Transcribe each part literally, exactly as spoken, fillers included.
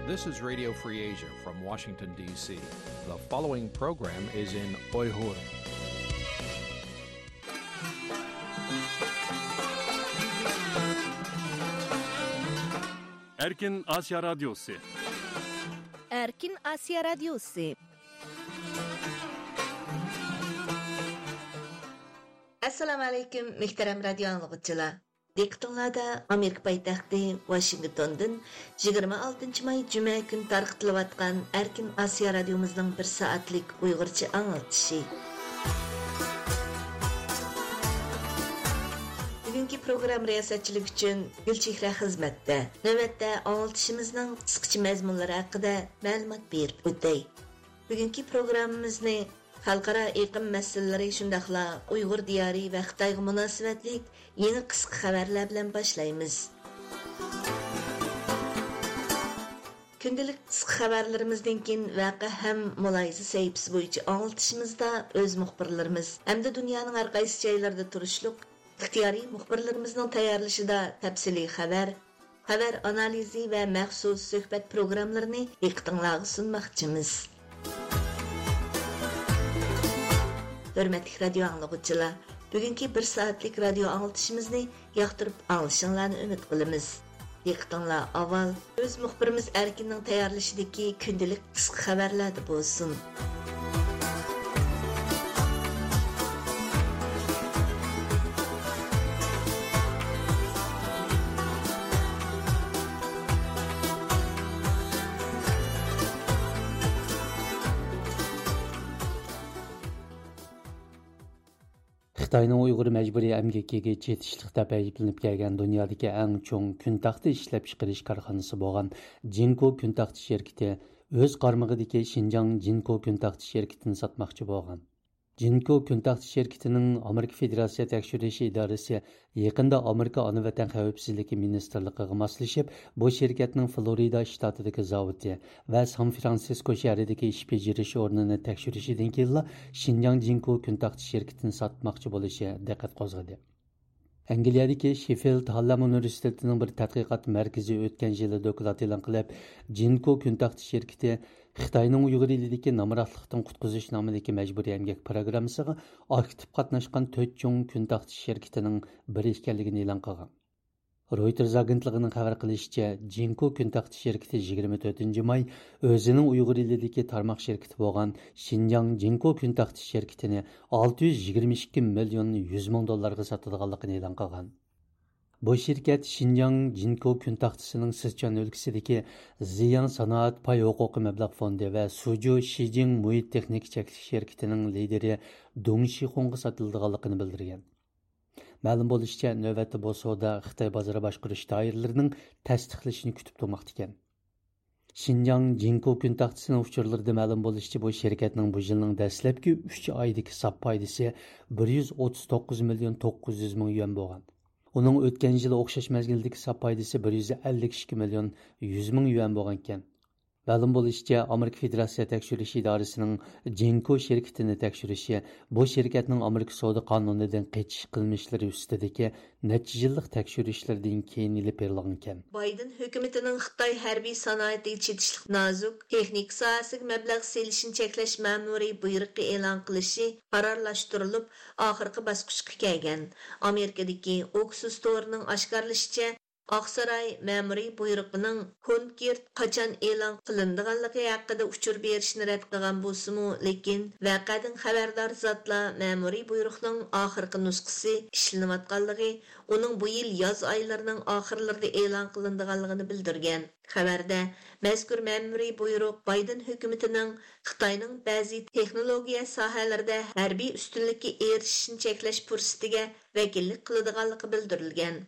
This is Radio Free Asia from Washington, D C. The following program is in Uyghur. ئەركىن ئاسىيا رادىيوسى. ئەركىن ئاسىيا رادىيوسى. ئەسسالامۇ ئەلەيكۇم، مۆھتەرەم رادىيو ئاڭلىغۇچىلار. دىققىتىڭلاردا ئامېرىكا پايتەختى ۋاشىنگتوندىن يىگىرمە ئالتىنچى ماي جۈمە كۈنى تارقىتىلىۋاتقان ئەركىن ئاسىيا رادىيومىزنىڭ بىر سائەتلىك ئۇيغۇرچە ئاڭلىتىشى. بۈگۈنكى پروگرامما رىياسەتچىلىكى ئۈچۈن گۈلچېھرە خىزمەتتە. نۆۋەتتە ئاڭلىتىشىمىزنىڭ قىسقىچە مەزمۇنلىرى ھەققىدە مەلۇمات بېرىپ ئۆتەي. بۈگۈنكى پروگراممىمىزنى خەلقئارا ئېقىم مەسىلىلىرى، شۇنداقلا ئۇيغۇر دىيارى ۋە خىتايغا مۇناسىۋەتلىك يېڭى قىسقا خەۋەرلەر بىلەن باشلايمىز. كۈندىلىك قىسقا خەۋەرلىرىمىزدىن كېيىن ۋەقە ھەم مۇلاھىزە سەھىپىسى بويىچە ئاڭلىتىشىمىزدا ئۆز مۇخبىرلىرىمىز ھەمدە دۇنيانىڭ ھەر قايسى جايلىرىدا تۇرۇشلۇق ئىختىيارىي مۇخبىرلىرىمىزنىڭ تەييارلىشىدا تەپسىلىي خەۋەر، خەۋەر ئانالىزى ۋە مەخسۇس سۆھبەت پروگراممىلىرىنى دىققىتىڭلارغا سۇنماقچىمىز. ھۆرمەتلىك رادىيو ئاڭلىغۇچىلار، بۈگۈنكى بىر سائەتلىك رادىيو ئاڭلىتىشىمىزنى ياقتۇرۇپ ئاڭلىشىڭلارنى ئۈمىد قىلىمىز. دىققىتىڭلار ئاۋۋال ئۆز مۇخبىرىمىز ئەركىننىڭ تەييارلىشىدىكى كۈندىلىك قىسقا خەۋەرلەردە بولسۇن. خىتاينىڭ ئۇيغۇر مەجبۇرىي ئەمگىكىگە چېتىشلىق دەپ ئەيىبلىنىپ كەلگەن دۇنيادىكى ئەڭ چوڭ كۈن تاختى ئىشلەپچىقىرىش كارخانىسى بولغان جىنكو كۈن تاختى شىركىتى ئۆز قارمىقىدىكى شىنجاڭ جىنكو كۈن تاختى شىركىتىنى ساتماقچى بولغان. جىنكو كۈن تاختى شىركىتىنىڭ ئامېرىكا فېدېراتسىيە تەكشۈرۈش ئىدارىسى يېقىندا ئامېرىكا ئانا ۋەتەن خەۋپسىزلىكى مىنىستىرلىقىغا ماسلىشىپ، بۇ شىركەتنىڭ فلورىدا شتاتىدىكى زاۋۇتى ۋە سان فرانسىسكو شەھىرىدىكى ئىش بېجىرىش ئورنىنى تەكشۈرۈشىدىن كېيىنلا شىنجاڭ جىنكو كۈن تاختى شىركىتىنى ساتماقچى بولۇشى دىققەت قوزغىدى. ئەنگلىيەدىكى شېففىلد ھارلەم ئۇنىۋېرسىتېتىنىڭ بىر تەتقىقات مەركىزى ئۆتكەن يىلى دوكلات ئېلان قىلىپ، جىنكو كۈن تاختى شىركىتى خىتاينىڭ ئۇيغۇر ئېلىدىكى نامراتلىقتىن قۇتقۇزۇش نامىدىكى مەجبۇرىي ئەمگەك پىروگراممىسىغا ئاكتىپ قاتناشقان تۆت چوڭ كۈن تاختى شىركىتىنىڭ بىرى ئىكەنلىكىنى ئېلان قىلغان. رويتېرز ئاگېنتلىقىنىڭ خەۋەر قىلىشىچە، جىنكو كۈن تاختى شىركىتى يىگىرمە تۆتىنچى ماي ئۆزىنىڭ ئۇيغۇر ئېلىدىكى تارماق شىركىتى بولغان شىنجاڭ جىنكو كۈن تاختى شىركىتىنى ئالتە يۈز يىگىرمە ئىككى مىليون يۈز مىڭ دوللارغا ساتىدىغانلىقىنى ئېلان قىلغان. بۇ شىركەت شىنجاڭ جىنكو كۈن تاختىسىنىڭ سىچۈەن ئۆلكىسىدىكى زىياڭ سانائەت پاي ھوقۇقى مەبلەغ فوندى ۋە سۇجۇ شىجىڭ مۇھىت تېخنىكا چەكلىك شىركىتىنىڭ لىدىرى دۇڭ شىخۇڭغا ساتىلىدىغانلىقىنى بىلدۈرگەن. مەلۇم بولۇشىچە، نۆۋەتتە بۇ سودا خىتاي بازار باشقۇرۇش دائىرىلىرىنىڭ تەستىقلىشىنى كۈتۈپ تۇرماقتا ئىكەن. شىنجاڭ جىنكو كۈن تاختىسىنىڭ ئۇچۇرلىرىدا مەلۇم بولۇشىچە، بۇ شىركەتنىڭ بۇ يىلنىڭ دەسلەپكى ئۈچ ئايدىكى ساپ پايدىسى بىر يۈز ئوتتۇز توققۇز مىليون توققۇز يۈز مىڭ يۈەن بولغان. ئۇنىڭ ئۆتكەن يىلى ئوخشاش مەزگىلدىكى ساپ پايدىسى بىر يۈز ئەللىك ئىككى مىليون يۈز مىڭ يۈەن بولغانىكەن. مەلۇم بولۇشىچە، ئامېرىكا فېدېراتسىيە تەكشۈرۈش ئىدارىسىنىڭ جىنكو شىركىتىنى تەكشۈرۈشى بۇ شىركەتنىڭ ئامېرىكا سودا قانۇنىدىن قېچىش قىلمىشلىرى ئۈستىدىكى نەچچە يىللىق تەكشۈرۈشلىرىدىن كېيىن ئېلىپ بېرىلغانىكەن. بايدېن ھۆكۈمىتىنىڭ خىتاي ھەربىي سانائىتىگە چېتىشلىق نازۇك تېخنىكا ساھەسىگە مەبلەغ سېلىشنى چەكلەش مەمۇرىي بۇيرۇقى ئېلان قىلىشى قارارلاشتۇرۇلۇپ، ئاخىرقى باسقۇچقا كەلگەن. ئامېرىكىدىكى ئوكسۇس تورىنىڭ ئاشكارىلىشىچە، ئاقساراي مەمۇرىي بۇيرۇقىنىڭ كونكرېت قاچان ئېلان قىلىنىدىغانلىقى ھەققىدە ئۇچۇر بېرىشنى رەت قىلغان بولسىمۇ، لېكىن ۋەقەدىن خەۋەردار زاتلار مەمۇرىي بۇيرۇقنىڭ ئاخىرقى نۇسخىسى ئىشلىنىۋاتقانلىقى، ئۇنىڭ بۇ يىل ياز ئايلىرىنىڭ ئاخىرلىرىدا ئېلان قىلىنىدىغانلىقىنى بىلدۈرگەن. خەۋەردە، مەزكۇر مەمۇرىي بۇيرۇق بايدېن ھۆكۈمىتىنىڭ خىتاينىڭ بەزى تېخنولوگىيە ساھەلىرىدە ھەربىي ئۈستۈنلۈككە ئېرىشىشنى چەكلەش پۇرسىتىگە ۋەكىللىك قىلىدىغانلىقى بىلدۈرۈلگەن.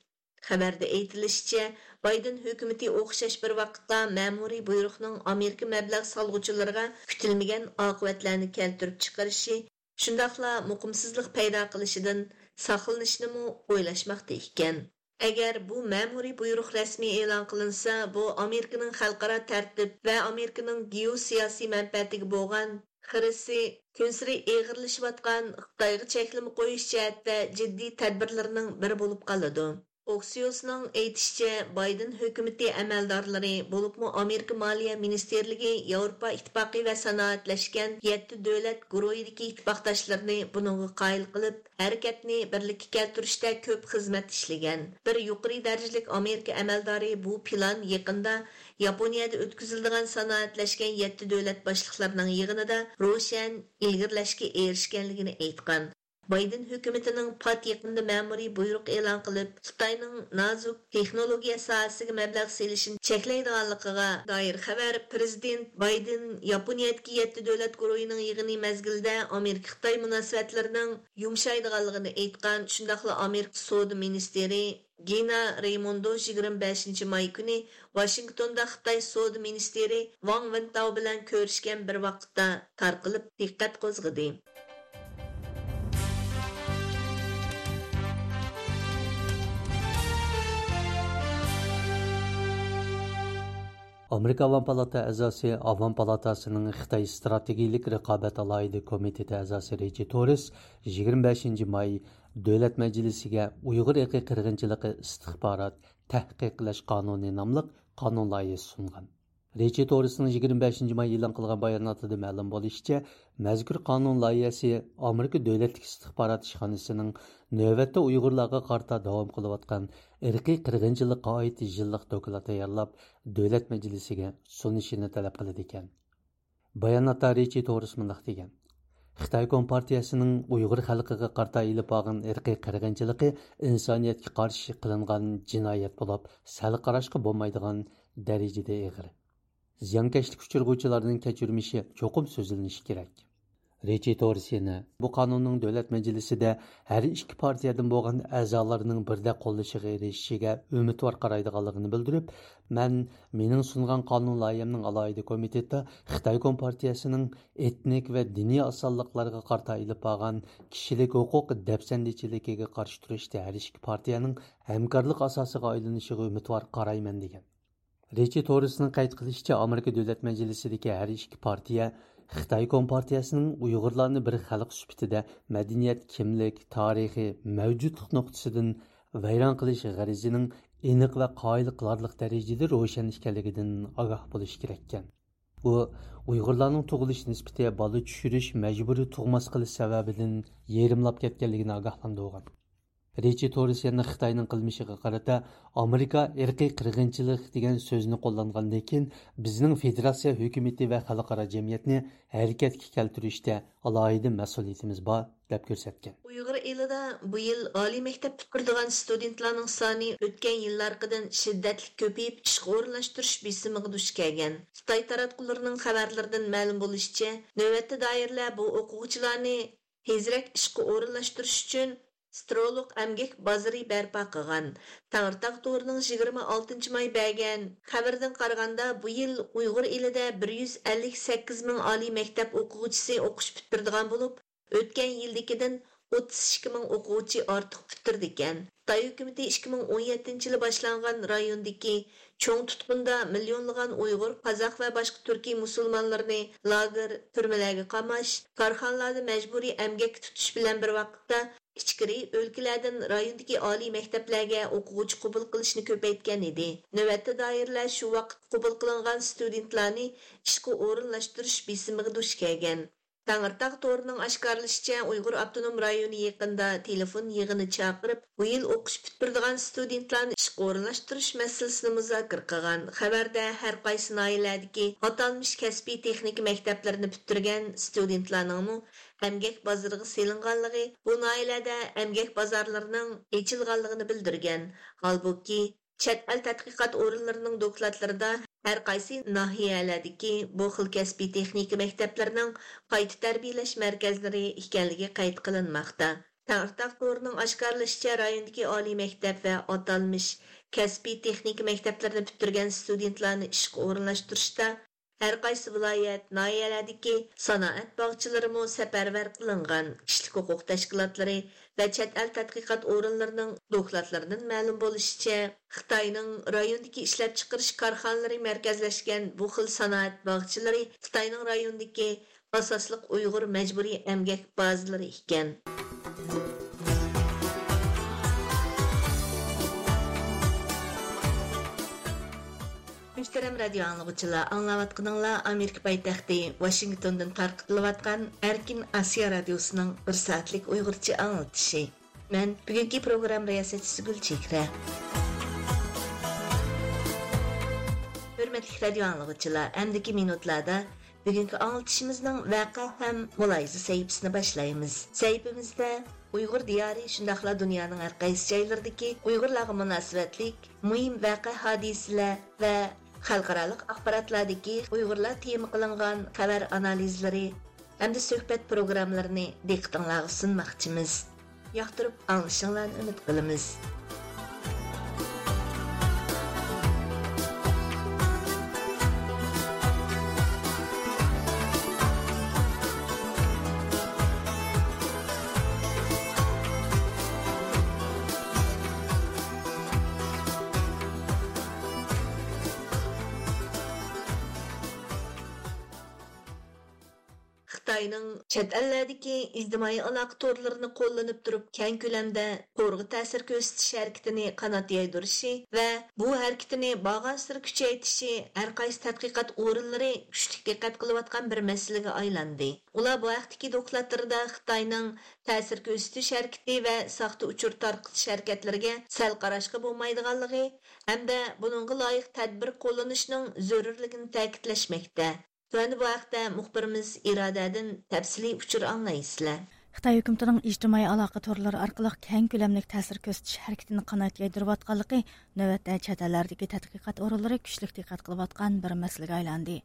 خەۋەردە ئېيتىلىشىچە، بايدېن ھۆكۈمىتى ئوخشاش بىر ۋاقىتتا مەمۇرىي بۇيرۇقنىڭ ئامېرىكا مەبلەغ سالغۇچىلىرىغا كۈتۈلمىگەن ئاقىۋەتلەرنى كەلتۈرۈپ چىقىرىشى، شۇنداقلا مۇقىمسىزلىق پەيدا قىلىشىدىن ساقلىنىشنىمۇ ئويلاشماقتا ئىكەن. ئەگەر بۇ مەمۇرىي بۇيرۇق رەسمىي ئېلان قىلىنسا، بۇ ئامېرىكىنىڭ خەلقئارا تەرتىپ ۋە ئامېرىكىنىڭ گېئوسىياسىي مەنپەئەتىگە بولغان خىرىسى كۈنسېرى ئېغىرلىشىۋاتقان خىتايغا چەكلىمە قويۇش جەھەتتە جىددىي تەدبىرلىرىنىڭ بىرى بولۇپ قالىدۇ. ئوكسىيوسنىڭ ئېيتىشىچە، بايدېن ھۆكۈمىتى ئەمەلدارلىرى، بولۇپمۇ ئامېرىكا مالىيە مىنىستىرلىكى ياۋروپا ئىتتىپاقى ۋە سانائەتلەشكەن يەتتە دۆلەت گۇرۇھىدىكى ئىتتىپاقداشلىرىنى بۇنىڭغا قايىل قىلىپ، ھەرىكەتنى بىرلىككە كەلتۈرۈشتە كۆپ خىزمەت ئىشلىگەن. بىر يۇقىرى دەرىجىلىك ئامېرىكا ئەمەلدارى بۇ پىلان يېقىندا ياپونىيەدە ئۆتكۈزۈلىدىغان سانائەتلەشكەن يەتتە دۆلەت باشلىقلىرىنىڭ يىغىنىدا روشەن ئىلگىرىلەشكە ئېرىشكەنلىكىنى ئېيتقان. بايدېن ھۆكۈمىتىنىڭ پات يېقىندا مەمۇرىي بۇيرۇق ئېلان قىلىپ، خىتاينىڭ نازۇك تېخنولوگىيە ساھەسىگە مەبلەغ سېلىشىنى چەكلەيدىغانلىقىغا دائىر خەۋەر پىرېزىدېنت بايدېن ياپونىيەدىكى يەتتە دۆلەت گۇرۇھىنىڭ يىغىنى مەزگىلىدە ئامېرىكا-خىتاي مۇناسىۋەتلىرىنىڭ يۇمشايدىغانلىقىنى ئېيتقان، شۇنداقلا ئامېرىكا سودا مىنىستىرى گىنا رەيموندو يىگىرمە بەشىنچى ماي كۈنى ۋاشىنگتوندا خىتاي سودا مىنىستىرى ۋاڭ ۋېنتاۋ بىلەن كۆرۈشكەن بىر ۋاقىتتا تارقىلىپ دىققەت قوزغىدى. ئامېرىكا ئاۋام پالاتا ئەزاسى، ئاۋام پالاتاسىنىڭ خىتاي ئىستراتېگىيىلىك رىقابەت ئالاھىدە كومىتېتى ئەزاسى رىچى توررېس يىگىرمە بەشىنچى ماي دۆلەت مەجلىسىگە ئۇيغۇر ئىرقىي قىرغىنچىلىقى ئىستىخبارات تەھقىق قىلىش قانۇنى ناملىق قانۇن لايىھەسى سۇنغان. رىچى توررېسنىڭ يىگىرمە بەشىنچى ماي ئېلان قىلغان باياناتىدا مەلۇم بولۇشىچە، مەزكۇر قانۇن لايىھەسى ئامېرىكا دۆلەتلىك ئىستىخبارات ئىشخانىسىنىڭ نۆۋەتتە ئۇيغۇرلارغا قارىتا داۋام قىلىۋاتقان ئىرقىي قىرغىنچىلىققا ئائىت يىللىق دوكلات تەييارلاپ، دۆلەت مەجلىسىگە سۇنۇشىنى تەلەپ قىلىدىكەن. باياناتتا رىچى توررېس مۇنداق دېگەن: خىتاي كومپارتىيەسىنىڭ ئۇيغۇر خەلقىگە قارىتا ئېلىپ بارغان ئىرقىي قىرغىنچىلىقى ئىنسانىيەتكە قارشى قىلىنغان جىنايەت بولۇپ، سەل قاراشقا بولمايدىغان دەرىجىدە ئېغىر. زىيانكەشلىككە ئۇچرىغۇچىلارنىڭ كەچۈرمىشى چوقۇم سۆزلىنىشى كېرەك. رىچى توررېس يەنە بۇ قانۇننىڭ دۆلەت مەجلىسىدە ھەر ئىككى پارتىيەدىن بولغان ئەزالارنىڭ بىردەك قوللىشىغا ئېرىشىشىگە ئۈمىدۋار قارايدىغانلىقىنى بىلدۈرۈپ، مەن مېنىڭ سۇنغان قانۇن لايىھەمنىڭ ئالاھىدە كومىتېتىدا خىتاي كومپارتىيەسىنىڭ ئېتنىك ۋە دىنىي ئاسانلىقلارغا قارىتا ئېلىپ بارغان كىشىلىك ھوقۇق دەپسەندىچىلىكىگە قارشى تۇرۇشتا ھەر ئىككى پارتىيەنىڭ ھەمكارلىق ئاساسىغا ئايلىنىشىغا ئۈمىدۋار قارايمەن، دېگەن. رىچى توررېسنىڭ قەيت قىلىشىچە، ئامېرىكا دۆلەت مەجلىسىدىكى ھەر ئىككى پارتىيە خىتاي كومپارتىيەسىنىڭ ئۇيغۇرلارنى بىر خەلق سۈپىتىدە مەدەنىيەت، كىملىك، تارىخىي مەۋجۇتلۇق نۇقتىسىدىن ۋەيران قىلىش غەرىزىنىڭ ئېنىق ۋە قايىل قىلارلىق دەرىجىدە روشەن ئىكەنلىكىدىن ئاگاھ بولۇشى كېرەككەن. ئۇ ئۇيغۇرلارنىڭ تۇغۇلۇش نىسبىتى بالا چۈشۈرۈش، مەجبۇرىي تۇغماس قىلىش سەۋەبىدىن يېرىملاپ كەتكەنلىكىنى ئاگاھلاندۇرغان. رىچى توررېس يەنە خىتاينىڭ قىلمىشىغا قارىتا، ئامېرىكا ئىرقىي قىرغىنچىلىق دېگەن سۆزنى قوللانغاندىن كېيىن، بىزنىڭ فېدېراتسىيە ھۆكۈمىتى ۋە خەلقئارا جەمئىيەتنى ھەرىكەتكە كەلتۈرۈشتە ئالاھىدە مەسئۇلىيىتىمىز بار، دەپ كۆرسەتكەن. ئۇيغۇر ئېلىدا بۇ يىل ئالىي مەكتەپ پۈتتۈرىدىغان ستۇدېنتلارنىڭ سانى ئۆتكەن يىللارقىدىن شىددەتلىك كۆپىيىپ، ئىشقا ئورۇنلاشتۇرۇش بېسىمىغا دۇچ كەلگەن. خىتاي تاراتقۇلىرىنىڭ خەۋەرلىرىدىن مەلۇم بولۇشىچە، نۆۋەتتە دائىرىلەر بۇ ئوقۇغۇچىلارنى تېزرەك ئىشقا ئورۇنلاشتۇرۇش ئۈچۈن سترولوق ئەمگەك بازىرى بەرپا قىلغان. تەڭرىتاغ تورىنىڭ يىگىرمە ئالتىنچى ماي بەرگەن خەۋىرىدىن قارىغاندا، بۇ يىل ئۇيغۇر ئېلىدە بىر يۈز ئەللىك سەككىز مىڭ ئالىي مەكتەپ ئوقۇغۇچىسى ئوقۇش پۈتتۈرىدىغان بولۇپ، ئۆتكەن يىلدىكىدىن ئوتتۇز ئىككى مىڭ ئوقۇغۇچى ئارتۇق پۈتتۈرىدىكەن. خىتاي ھۆكۈمىتى ئىككى مىڭ ئون يەتتىنچى يىلى باشلانغان رايوندىكى چوڭ تۇتقۇندا مىليونلىغان ئۇيغۇر، قازاق ۋە باشقا تۈركىي مۇسۇلمانلىرىنى لاگېر، تۈرمىلەرگە قاماش، كارخانىلاردا مەجبۇرىي ئەمگەككە تۇتۇش بىلەن بىر ۋاقىتتا، ئىچكىرى ئۆلكىلەردىن رايوندىكى ئالىي مەكتەپلەرگە ئوقۇغۇچى قوبۇل قىلىشنى كۆپەيتكەن ئىدى. نۆۋەتتە دائىرىلەر شۇ ۋاقىت قوبۇل قىلىنغان ستۇدېنتلارنى ئىشقا ئورۇنلاشتۇرۇش بېسىمىغا دۇچ كەلگەن. تەڭرىتاغ تورىنىڭ ئاشكارىلىشىچە، ئۇيغۇر ئاپتونوم رايونى يېقىندا تېلېفون يىغىنى چاقىرىپ، بۇ يىل ئوقۇش پۈتتۈرىدىغان ستۇدېنتلارنى ئىشقا ئورۇنلاشتۇرۇش مەسىلىسىنى مۇزاكىرە قىلغان. خەۋەردە ھەر قايسى ناھىيەلەردىكى ئاتالمىش كەسپىي تېخنىكا مەكتەپلىرىنى پۈتتۈرگەن ستۇدېنتلارنىڭمۇ ئەمگەك بازىرىغا سېلىنغانلىقى، بۇ ناھىيەلەردە ئەمگەك بازارلىرىنىڭ ئېچىلغانلىقىنى بىلدۈرگەن. ھالبۇكى، چەت ئەل تەتقىقات ئورۇنلىرىنىڭ دوكلاتلىرىدا ھەر قايسى ناھىيەلەردىكى بۇ خىل كەسپىي تېخنىكا مەكتەپلىرىنىڭ قايتا تەربىيەلەش مەركەزلىرى ئىكەنلىكى قەيت قىلىنماقتا. تەڭرىتاغ تورىنىڭ ئاشكارىلىشىچە، رايوندىكى ئالىي مەكتەپ ۋە ئاتالمىش كەسپىي تېخنىكا مەكتەپلىرىنى پۈتتۈرگەن ستۇدېنتلارنى ئىشقا ئورۇنلاشتۇرۇشتا ھەر قايسى ۋىلايەت، ناھىيەلەردىكى سانائەت باغچىلىرىمۇ سەپەرۋەر قىلىنغان. كىشىلىك ھوقۇق تەشكىلاتلىرى ۋە چەت ئەل تەتقىقات ئورۇنلىرىنىڭ دوكلاتلىرىدىن مەلۇم بولۇشىچە، خىتاينىڭ رايوندىكى ئىشلەپچىقىرىش كارخانىلىرى مەركەزلەشكەن بۇ خىل سانائەت باغچىلىرى خىتاينىڭ رايوندىكى ئاساسلىق ئۇيغۇر مەجبۇرىي ئەمگەك بازىلىرى ئىكەن. مۇھتەرەم رادىيو ئاڭلىغۇچىلار، ئاڭلاۋاتقىنىڭلار ئامېرىكا پايتەختى ۋاشىنگتوندىن تارقىتىلىۋاتقان ئەركىن ئاسىيا رادىيوسىنىڭ بىر سائەتلىك ئۇيغۇرچە ئاڭلىتىشى. مەن بۈگۈنكى پروگرامما رىياسەتچىسى گۈلچېھرە. ھۆرمەتلىك رادىيو ئاڭلىغۇچىلار، ئەمدىكى مىنۇتلاردا بۈگۈنكى ئاڭلىتىشىمىزنىڭ ۋەقە ھەم مۇلاھىزە سەھىپىسىنى باشلايمىز. سەھىپىمىزدە ئۇيغۇر دىيارى، شۇنداقلا دۇنيانىڭ ھەر قايسى جايلىرىدىكى ئۇيغۇرلارغا مۇناسىۋەتلىك مۇھىم ۋەقە، ھادىسىلەر ۋە خەلقئارالىق ئاخباراتلاردىكى ئۇيغۇرلار تېما قىلىنغان خەۋەر ئانالىزلىرى ھەمدە سۆھبەت پروگراممىلىرىنى دىققىتىڭلارغا سۇنماقچىمىز. ياقتۇرۇپ ئاڭلىشىڭلارنى ئۈمىد قىلىمىز. خىتاينىڭ چەت ئەللەردىكى ئىجتىمائىي ئالاقە تورلىرىنى قوللىنىپ تۇرۇپ، كەڭ كۆلەمدە تورغا تەسىر كۆرسىتىش ھەرىكىتىنى قانات يايدۇرۇشى ۋە بۇ ھەرىكىتىنى بارغانسېرى كۈچەيتىشى ھەر قايسى تەتقىقات ئورۇنلىرى كۈچلۈك دىققەت قىلىۋاتقان بىر مەسىلىگە ئايلاندى. ئۇلار بۇ ھەقتىكى دوكلاتلىرىدا خىتاينىڭ تەسىر كۆرسىتىش ھەرىكىتى ۋە ساختا ئۇچۇر تارقىتىش ھەرىكەتلىرىگە سەل قاراشقا بولمايدىغانلىقى ھەمدە بۇنىڭغا لايىق تەدبىر قوللىنىشنىڭ زۆرۈرلۈكىنى تەكىتلەشمەكتە. تۆۋەندە بۇ ھەقتە مۇخبىرىمىز ئىرادەدىن تەپسىلىي ئۇچۇر ئاڭلايسىلەر. خىتاي ھۆكۈمىتىنىڭ ئىجتىمائىي ئالاقە تورلىرى ئارقىلىق كەڭ كۆلەملىك تەسىر كۆرسىتىش ھەرىكىتىنى قانات يايدۇرۇۋاتقانلىقى نۆۋەتتە چەت ئەللەردىكى تەتقىقات ئورۇنلىرى كۈچلۈك دىققەت قىلىۋاتقان بىر مەسىلىگە ئايلاندى.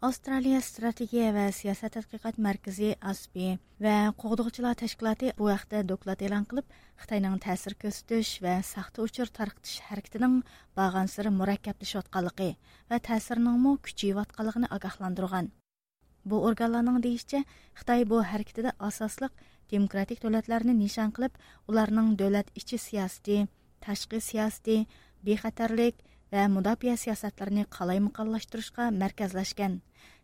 ئاۋسترالىيە ئىستراتېگىيە ۋە سىياسەت تەتقىقات مەركىزى، ئاسپى، ۋە قوغدىغۇچىلار تەشكىلاتى بۇ ھەقتە دوكلات ئېلان قىلىپ، خىتاينىڭ تەسىر كۆرسىتىش ۋە ساختا ئۇچۇر تارقىتىش ھەرىكىتىنىڭ بارغانسېرى مۇرەككەپلىشىۋاتقانلىقى ۋە تەسىرىنىڭمۇ كۈچىيىۋاتقانلىقىنى ئاگاھلاندۇرغان. بۇ ئورگانلارنىڭ دېيىشىچە، خىتاي بۇ ھەرىكىتىدە ئاساسلىق دېموكراتىك دۆلەتلەرنى نىشان قىلىپ، ئۇلارنىڭ دۆلەت ئىچى سىياسىتى، تاشقى سىياسىتى، بىخەتەرلىك ۋە مۇداپىئە سىياسەتلىرىنى قالايمىقانلاشتۇرۇشقا مەركەزلەشكەن.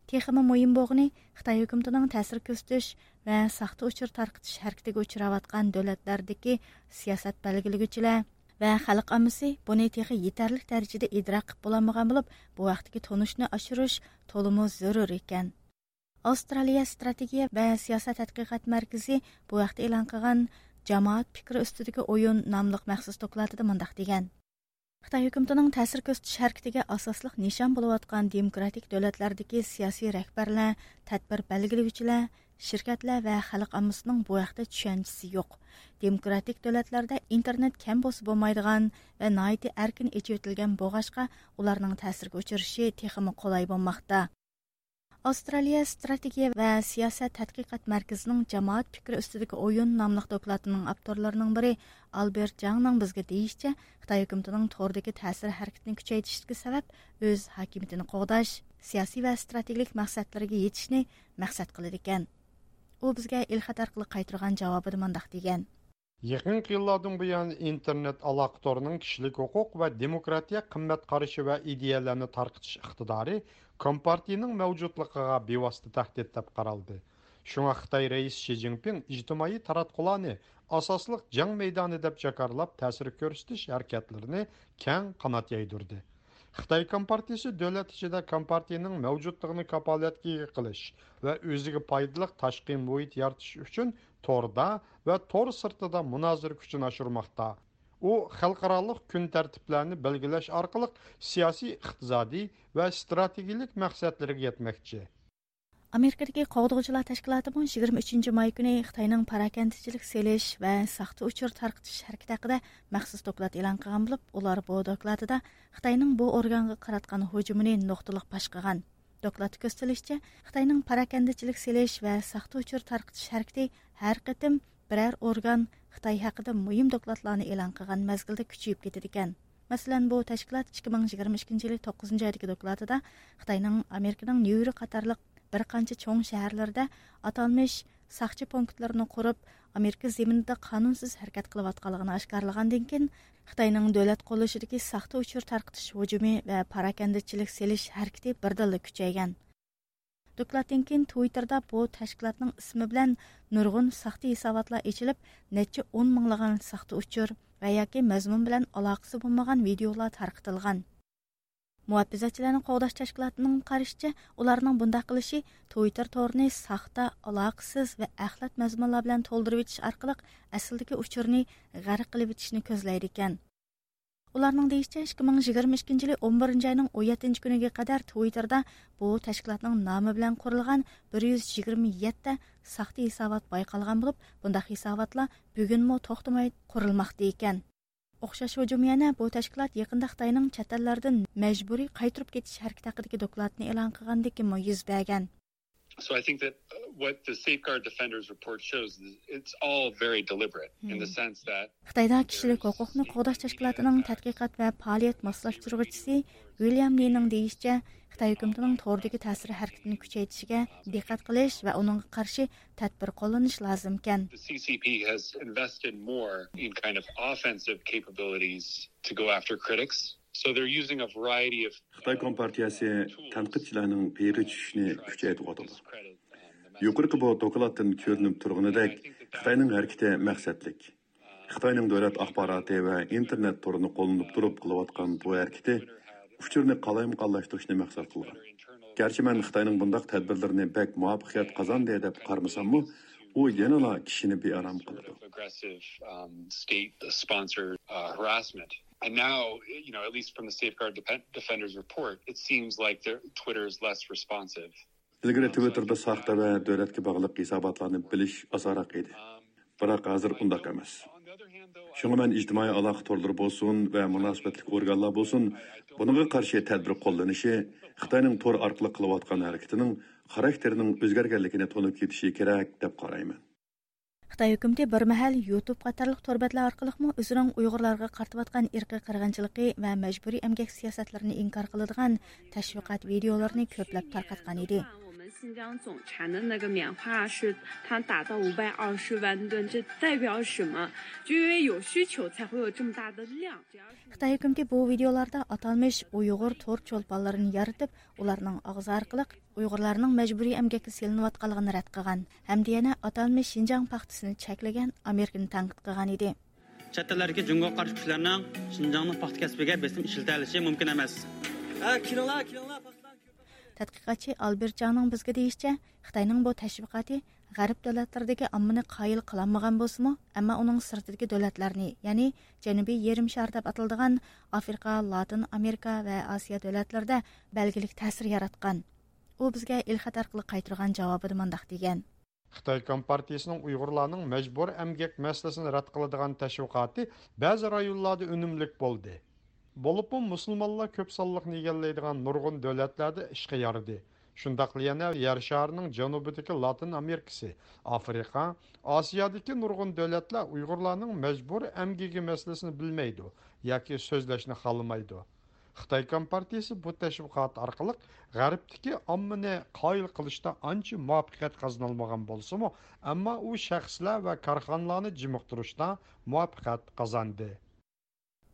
تېخىمۇ مۇھىم بولغىنى، خىتاي ھۆكۈمىتىنىڭ تەسىر كۆرسىتىش ۋە ساختا ئۇچۇر تارقىتىش ھەرىكىتىگە ئۇچراۋاتقان دۆلەتلەردىكى سىياسەت بەلگىلىگۈچىلەر ۋە خەلق ئاممىسى بۇنى تېخى يېتەرلىك دەرىجىدە ئىدراك قىلىپ بولالمىغان بولۇپ، بۇ ھەقتىكى تونۇشنى ئاشۇرۇش تولىمۇ زۆرۈر ئىكەن. ئاۋسترالىيە ئىستراتېگىيە ۋە سىياسەت تەتقىقات مەركىزى بۇ ھەقتە ئېلان قىلغان جامائەت پىكرى ئۈستىدىكى ئويۇن ناملىق مەخسۇس دوكلاتىدا مۇنداق دېگەن: خىتاي ھۆكۈمىتىنىڭ تەسىر كۆرسىتىش ھەرىكىتىگە ئاساسلىق نىشان بولۇۋاتقان دېموكراتىك دۆلەتلەردىكى سىياسىي رەھبەرلەر، تەدبىر بەلگىلىگۈچىلەر، شىركەتلەر ۋە خەلق ئاممىسىنىڭ بۇ ھەقتە چۈشەنچىسى يوق. دېموكراتىك دۆلەتلەردە ئىنتېرنېت كەم بولسا بولمايدىغان ۋە ناھايىتى ئەركىن ئېچىۋېتىلگەن بولغاچقا، ئۇلارنىڭ تەسىرگە ئۇچرىشى تېخىمۇ قولاي بولماقتا. ئاۋسترالىيە ئىستراتېگىيە ۋە سىياسەت تەتقىقات مەركىزىنىڭ جامائەت پىكرى ئۈستىدىكى ئويۇن ناملىق دوكلاتىنىڭ ئاپتورلىرىنىڭ بىرى ئالبېرت جاڭنىڭ بىزگە دېيىشىچە، خىتاي ھۆكۈمىتىنىڭ توردىكى تەسىر ھەرىكىتىنى كۈچەيتىشتىكى سەۋەب ئۆز ھاكىمىيىتىنى قوغداش، سىياسىي ۋە ئىستراتېگىيىلىك مەقسەتلىرىگە يېتىشنى مەقسەت قىلىدىكەن. ئۇ بىزگە ئېلخەت ئارقىلىق قايتۇرغان جاۋابىدا مۇنداق دېگەن: يېقىنقى يىللاردىن بۇيان، ئىنتېرنېت ئالاقە تورىنىڭ كىشىلىك ھوقۇق ۋە دېموكراتىيە قىممەت قارىشى ۋە ئىدىيەلەرنى تارقىتىش ئىقتىدارى كومپارتىيىنىڭ مەۋجۇتلۇقىغا بىۋاسىتە تەھدىت دەپ قارالدى. شۇڭا خىتاي رەئىسى شى جىنپىڭ ئىجتىمائىي تاراتقۇلارنى ئاساسلىق جەڭ مەيدانى دەپ جاكارلاپ، تەسىر كۆرسىتىش ھەرىكەتلىرىنى كەڭ قانات يايدۇردى. خىتاي كومپارتىيىسى دۆلەت ئىچىدە كومپارتىيىنىڭ مەۋجۇتلۇقىنى كاپالەتكە ئىگە قىلىش ۋە ئۆزىگە پايدىلىق تاشقى مۇھىت يارىتىش ئۈچۈن توردا ۋە تور سىرتىدا مۇنازىرە كۈچىنى ئاشۇرماقتا. ئۇ خەلقئارالىق كۈن تەرتىپلەرنى بەلگىلەش ئارقىلىق سىياسىي، ئىقتىسادىي ۋە ئىستراتېگىيىلىك مەقسەتلىرىگە يەتمەكچى. ئامېرىكىدىكى قوغدىغۇچىلار تەشكىلاتىمۇ يىگىرمە ئۈچىنچى ماي كۈنى خىتاينىڭ پاراكەندىچىلىك سېلىش ۋە ساختا ئۇچۇر تارقىتىش ھەرىكىتى ھەققىدە مەخسۇس دوكلات ئېلان قىلغان بولۇپ، ئۇلار بۇ دوكلاتىدا خىتاينىڭ بۇ ئورگانغا قاراتقان ھۇجۇمىنى نۇقتىلىق باش قىلغان. دوكلاتتا كۆرسىتىلىشىچە، خىتاينىڭ پاراكەندىچىلىك سېلىش ۋە ساختا ئۇچۇر تارقىتىش ھەرىكىتى ھەر قېتىم بىرەر ئورگان خىتاي ھەققىدە مۇھىم دوكلاتلارنى ئېلان قىلغان مەزگىلدە كۈچىيىپ كېتىدىكەن. مەسىلەن، بۇ تەشكىلات ئىككى مىڭ يىگىرمە ئىككىنچى يىلى توققۇزىنچى ئايدىكى دوكلاتىدا خىتاينىڭ ئامېرىكىنىڭ نيۇ يورك قاتارلىق بىر قانچە چوڭ شەھەرلىرىدە ئاتالمىش ساقچى پونكىتلىرىنى قۇرۇپ، ئامېرىكا زېمىنىدا قانۇنسىز ھەرىكەت قىلىۋاتقانلىقىنى ئاشكارىلىغاندىن كېيىن، خىتاينىڭ دۆلەت قوللىشىدىكى ساختا ئۇچۇر تارقىتىش ھۇجۇمى ۋە پاراكەندىچىلىك سېلىش ھەرىكىتى بىردىنلا كۈچەيگەن. دوكلاتتىن كېيىن تىۋىتتېردا بۇ تەشكىلاتنىڭ ئىسمى بىلەن نۇرغۇن ساختا ھېساباتلار ئېچىلىپ، نەچچە ئون مىڭلىغان ساختا ئۇچۇر ۋە ياكى مەزمۇن بىلەن ئالاقىسى بولمىغان ۋىدېئولار تارقىتىلغان. مۇھاپىزەتچىلەرنى قوغداش تەشكىلاتىنىڭ قارىشىچە، ئۇلارنىڭ بۇنداق قىلىشى تۋىتتېر تورىنى ساختا، ئالاقىسىز ۋە ئەخلەت مەزمۇنلار بىلەن تولدۇرۇۋېتىش ئارقىلىق ئەسلىدىكى ئۇچۇرنى غەرق قىلىۋېتىشنى كۆزلەيدىكەن. ئۇلارنىڭ دېيىشىچە، ئىككى مىڭ يىگىرمە ئىككىنچى يىلى ئون بىرىنچى ئاينىڭ ئون يەتتىنچى كۈنىگە قەدەر تۋىتتېردا بۇ تەشكىلاتنىڭ نامى بىلەن قۇرۇلغان بىر يۈز يىگىرمە يەتتە ساختا ھېسابات بايقالغان بولۇپ، بۇنداق ھېساباتلار بۈگۈنمۇ توختىماي قۇرۇلماقتا ئىكەن. ئوخشاش ھۇجۇم يەنە بۇ تەشكىلات يېقىندا خىتاينىڭ چەت ئەللەردىن مەجبۇرىي قايتۇرۇپ كېتىش ھەرىكىتى ھەققىدىكى دوكلاتنى ئېلان قىلغاندىن كېيىنمۇ يۈز بەرگەن. So I think that, uh, what the Safeguard Defenders report shows is it's all very deliberate in the Hmm. sense that خىتايدا كىشىلىك ھوقۇقنى قوغداش تەشكىلاتىنىڭ تەتقىقات ۋە پائالىيەت ماسلاشتۇرغۇچىسى ۋىليام لىنىڭ دېيىشىچە، خىتاي ھۆكۈمىتىنىڭ توردىكى تەسىر ھەرىكىتىنى كۈچەيتىشىگە دىققەت قىلىش ۋە ئۇنىڭغا قارشى تەدبىر قوللىنىش لازىمكەن. The C C P has invested more in kind of offensive capabilities to go after critics. So they're using a variety of خىتاي كومپارتىيەسى تەنقىدچىلەرنىڭ پېيىغا چۈشۈشىنى كۈچەيتىۋاتىدۇ. يۇقىرىقى بۇ دوكلاتتىن كۆرۈنۈپ تۇرغىنىدەك، خىتاينىڭ ھەرىكىتى مەقسەتلىك. خىتاينىڭ دۆلەت ئاخباراتى ۋە ئىنتېرنېت تورىنى قوللىنىپ تۇرۇپ قىلىۋاتقان بۇ ھەرىكىتى ئۇچۇرنى قالايمىقانلاشتۇرۇشنى مەقسەت قىلغان. گەرچە مەن خىتاينىڭ بۇنداق تەدبىرلىرىنى بەك مۇۋەپپەقىيەت قازاندى دەپ قارىمىساممۇ، ئۇ يەنىلا كىشىنى بىئارام قىلىدۇ. Aggressive, um, state-sponsored, uh, harassment. And now, you know, at least from the Safeguard Depen-, Defenders report, it seems like the, Twitter is less responsive. ئىلگىرى تىۋىتتېردا ساختا ۋە دۆلەتكە باغلىق ھېساباتلارنى بىلىش ئاسانراق ئىدى. بىراق ھازىر ئۇنداق ئەمەس. شۇڭا مەن ئىجتىمائىي ئالاقە تورلىرى بولسۇن ۋە مۇناسىۋەتلىك ئورگانلار بولسۇن، بۇنىڭغا قارشى تەدبىر قوللىنىشى خىتاينىڭ تور ئارقىلىق قىلىۋاتقان ھەرىكىتىنىڭ خاراكتېرىنىڭ ئۆزگەرگەنلىكىنى تونۇپ يېتىشى كېرەك دەپ قارايمەن. خىتاي ھۆكۈمىتى بىر مەھەل يۇتۇب قاتارلىق تور بەتلەر ئارقىلىقمۇ ئۆزىنىڭ ئۇيغۇرلارغا قارىتىۋاتقان ئىرقىي قىرغىنچىلىقى ۋە مەجبۇرىي ئەمگەك سىياسەتلىرىنى ئىنكار قىلىدىغان تەشۋىقات ۋىدېئولىرىنى كۆپلەپ تارقاتقان ئىدى. 我们新疆总产的那个棉花是它达到五百二十万吨，这代表什么？就因为有需求才会有这么大的量。 خىتاي ھۆكۈمىتى بۇ ۋىدېئولاردا ئاتالمىش ئۇيغۇر تور چولپانلىرىنى يارىتىپ، ئۇلارنىڭ ئاغزى ئارقىلىق ئۇيغۇرلارنىڭ مەجبۇرىي ئەمگەككە سېلىنىۋاتقانلىقىنى رەت قىلغان ھەمدە يەنە ئاتالمىش شىنجاڭ پاختىسىنى چەكلىگەن ئامېرىكىنى تەنقىد قىلغان ئىدى. چەت ئەللەردىكى جۇڭگوغا قارشى كۈچلەرنىڭ شىنجاڭنىڭ پاختا كەسپىگە بېسىم ئىشلىتەلىشى مۇمكىن ئەمەس. ھە، كېلىڭلار، كېلىڭلار، پاختىلارنى كۆپەيتىڭ. تەتقىقاتچى ئالبېرت جاڭنىڭ بىزگە دېيىشىچە، خىتاينىڭ بۇ تەشۋىقاتى غەرب دۆلەتلىرىدىكى ئاممىنى قايىل قىلالمىغان بولسىمۇ، ئەمما ئۇنىڭ سىرتىدىكى دۆلەتلەرنى، يەنى جەنۇبىي يېرىم شار دەپ ئاتىلىدىغان ئافرىقا، لاتىن ئامېرىكا ۋە ئاسىيا دۆلەتلىرىدە بەلگىلىك تەسىر ياراتقان. ئۇ بىزگە ئېلخەت ئارقىلىق قايتۇرغان جاۋابىدا مۇنداق دېگەن. خىتاي كومپارتىيىسىنىڭ ئۇيغۇرلارنىڭ مەجبۇرىي ئەمگەك مەسىلىسىنى رەت قىلىدىغان تەشۋىقاتى بەزى رايونلاردا ئۈنۈملۈك بولدى. بولۇپمۇ مۇسۇلمانلار كۆپ سانلىقنى ئىگىلەيدىغان نۇرغۇن دۆلەتلەردە ئىشقا يارىدى. شۇنداقلا يەنە يەر شارىنىڭ جەنۇبىدىكى لاتىن ئامېرىكىسى، ئافرىقا، ئاسىيادىكى نۇرغۇن دۆلەتلەر ئۇيغۇرلارنىڭ مەجبۇرىي ئەمگىكى مەسىلىسىنى بىلمەيدۇ ياكى سۆزلەشنى خالىمايدۇ. خىتاي كومپارتىيىسى بۇ تەشۋىقات ئارقىلىق غەربتىكى ئاممىنى قايىل قىلىشتا ئانچە مۇۋەپپەقىيەت قازىنالمىغان بولسىمۇ، ئەمما ئۇ شەخسلەر ۋە كارخانىلارنى جىمىقتۇرۇشتا مۇۋەپپەقىيەت قازاندى.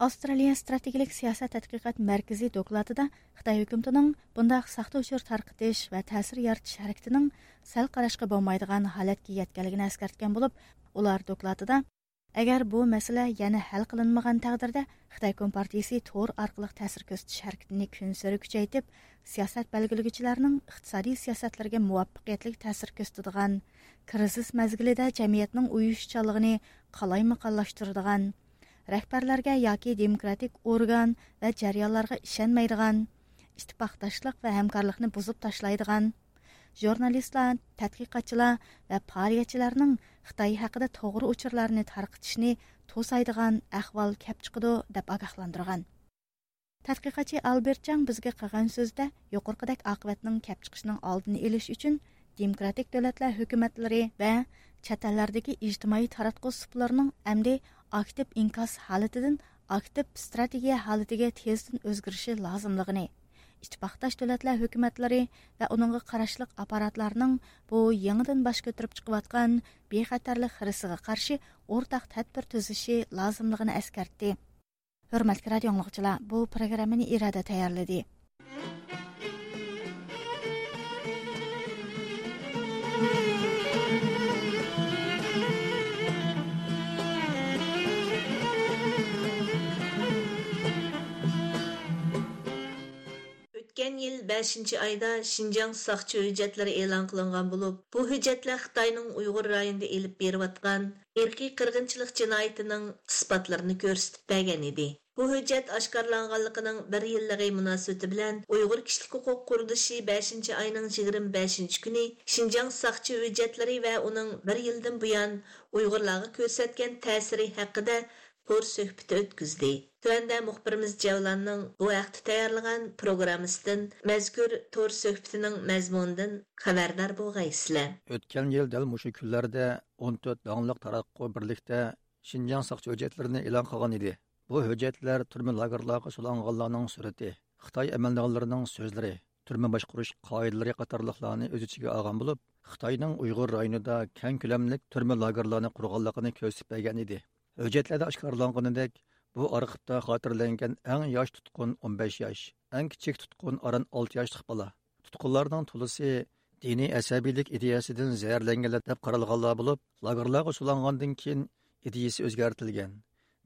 ئاۋسترالىيە ستراتېگىيىلىك سىياسەت تەتقىقات مەركىزى دوكلاتىدا خىتاي ھۆكۈمىتىنىڭ بۇنداق ساختا ئۇچۇر تارقىتىش ۋە تەسىر يارىتىش ھەرىكىتىنىڭ سەل قاراشقا بولمايدىغان ھالەتكە يەتكەنلىكىنى ئەسكەرتكەن بولۇپ، ئۇلار دوكلاتىدا، ئەگەر بۇ مەسىلە يەنە ھەل قىلىنمىغان تەقدىردە، خىتاي كومپارتىيىسى تور ئارقىلىق تەسىر كۆرسىتىش ھەرىكىتىنى كۈنسېرى كۈچەيتىپ، سىياسەت بەلگىلىگۈچىلەرنىڭ ئىقتىسادىي سىياسەتلىرىگە مۇۋەپپەقىيەتلىك تەسىر كۆرسىتىدىغان، كىرىزىس مەزگىلىدە جەمئىيەتنىڭ ئۇيۇشۇشچانلىقىنى قالايمىقانلاشتۇرىدىغان، رەھبەرلەرگە ياكى دېموكراتىك ئورگان ۋە جەريانلارغا ئىشەنمەيدىغان، ئىتتىپاقداشلىق ۋە ھەمكارلىقنى بۇزۇپ تاشلايدىغان، ژۇرنالىستلار، تەتقىقاتچىلار ۋە پائالىيەتچىلەرنىڭ خىتاي ھەققىدە توغرا ئۇچۇرلارنى تارقىتىشنى توسايدىغان ئەھۋال كەپ چىقىدۇ، دەپ ئاگاھلاندۇرغان. تەتقىقاتچى ئالبېرت جاڭ بىزگە قىلغان سۆزىدە، يۇقىرىقىدەك ئاقىۋەتنىڭ كەپ چىقىشىنىڭ ئالدىنى ئېلىش ئۈچۈن، دېموكراتىك دۆلەتلەر ھۆكۈمەتلىرى ۋە چەت ئەللەردىكى ئىجتىمائىي تاراتقۇ سۇپىلىرىنىڭ ئەمدى ئاكتىپ ئىنكاس ھالىتىدىن ئاكتىپ ستراتېگىيە ھالىتىگە تېزدىن ئۆزگىرىشى لازىملىقىنى، ئىتتىپاقداش دۆلەتلەر ھۆكۈمەتلىرى ۋە ئۇنىڭغا قاراشلىق ئاپپاراتلارنىڭ بۇ يېڭىدىن باش كۆتۈرۈپ چىقىۋاتقان بىخەتەرلىك خىرىسىغا قارشى ئورتاق تەدبىر تۈزۈشى لازىملىقىنى ئەسكەرتتى. ھۆرمەتلىك رادىئو ئاڭلىغۇچىلار، بۇ پروگراممىنى ئىرادە تەييارلىدى. بەشىنچى ئايدا شىنجاڭ ساقچى ھۆججەتلىرى ئېلان قىلىنغان بولۇپ، بۇ ھۆججەتلەر خىتاينىڭ ئۇيغۇر رايونىدا ئېلىپ بېرىۋاتقان ئىرقىي قىرغىنچىلىق جىنايىتىنىڭ ئىسپاتلىرىنى كۆرسىتىپ بەرگەن ئىدى. بۇ ھۆججەت ئاشكارىلانغانلىقىنىڭ بىر يىللىقى مۇناسىۋىتى بىلەن ئۇيغۇر كىشىلىك ھوقۇق قۇرۇلۇشى بەشىنچى ئاينىڭ يىگىرمە بەشىنچى كۈنى شىنجاڭ ساقچى ھۆججەتلىرى ۋە ئۇنىڭ بىر يىلدىن بۇيان ئۇيغۇرلارغا كۆرسەتكەن تەسىرى ھەققىدە تور سۆھبىتى ئۆتكۈزدى. تۆۋەندە مۇخبىرىمىز جەۋلاننىڭ بۇ ھەقتە تەييارلىغان پروگراممىسىدىن، مەزكۇر تور سۆھبىتىنىڭ مەزمۇنىدىن خەۋەردار بولغايسىلەر. ئۆتكەن يىل دەل مۇشۇ كۈنلەردە ئون تۆت داڭلىق تاراتقۇ بىرلىكتە شىنجاڭ ساقچى ھۆججەتلىرىنى ئېلان قىلغان ئىدى. بۇ ھۆججەتلەر تۈرمە لاگېرلارغا سولانغانلارنىڭ سۈرىتى، خىتاي ئەمەلدارلىرىنىڭ سۆزلىرى، تۈرمە باشقۇرۇش قائىدىلىرى قاتارلىقلارنى ئۆز ئىچىگە ئالغان بولۇپ، خىتاينىڭ ئۇيغۇر رايونىدا كەڭ كۆلەملىك تۈرمە لاگېرلارنى قۇرغانلىقىنى كۆرسىتىپ بەرگەن ئىدى. ھۆججەتلەردە ئاشكارىلانغىنىدەك، بۇ ئارخىپتا خاتىرىلەنگەن ئەڭ ياش تۇتقۇن ئون بەش ياش، ئەڭ كىچىك تۇتقۇن ئاران ئالتە ياشلىق بالا. تۇتقۇنلارنىڭ تولىسى دىنىي ئەسەبىيلىك ئىدىيەسىدىن زەھەرلەنگەنلەر دەپ قارالغانلار بولۇپ، لاگېرلارغا سولانغاندىن كېيىن ئىدىيىسى ئۆزگەرتىلگەن،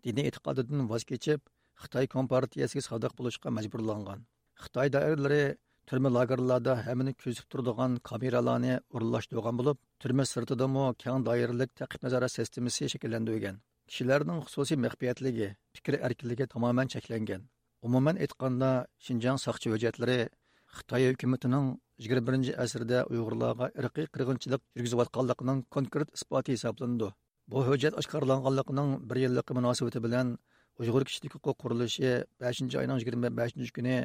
دىنىي ئېتىقادىدىن ۋاز كېچىپ، خىتاي كومپارتىيەسىگە سادىق بولۇشقا مەجبۇرلانغان. خىتاي دائىرىلىرى تۈرمە لاگېرلاردا ھەممىنى كۆزىتىپ تۇرىدىغان كامېرالارنى ئورۇنلاشتۇرغان بولۇپ، تۈرمە سىرتىدىمۇ كەڭ دائىرىلىك تەقىب نازارەت سىستېمىسى شەكىللەندۈرگەن. كىشىلەرنىڭ خۇسۇسىي مەخپىيەتلىكى، پىكىر ئەركىنلىكى تامامەن چەكلەنگەن. ئومۇمەن ئېيتقاندا، شىنجاڭ ساقچى ھۆججەتلىرى خىتاي ھۆكۈمىتىنىڭ يىگىرمە بىرىنچى ئەسىردە ئۇيغۇرلارغا ئىرقىي قىرغىنچىلىق يۈرگۈزۈۋاتقانلىقىنىڭ كونكرېت ئىسپاتى ھېسابلىنىدۇ. بۇ ھۆججەت ئاشكارىلانغانلىقىنىڭ بىر يىللىقى مۇناسىۋىتى بىلەن ئۇيغۇر كىشىلىك ھوقۇق قۇرۇلۇشى بەشىنچى ئاينىڭ يىگىرمە بەشىنچى كۈنى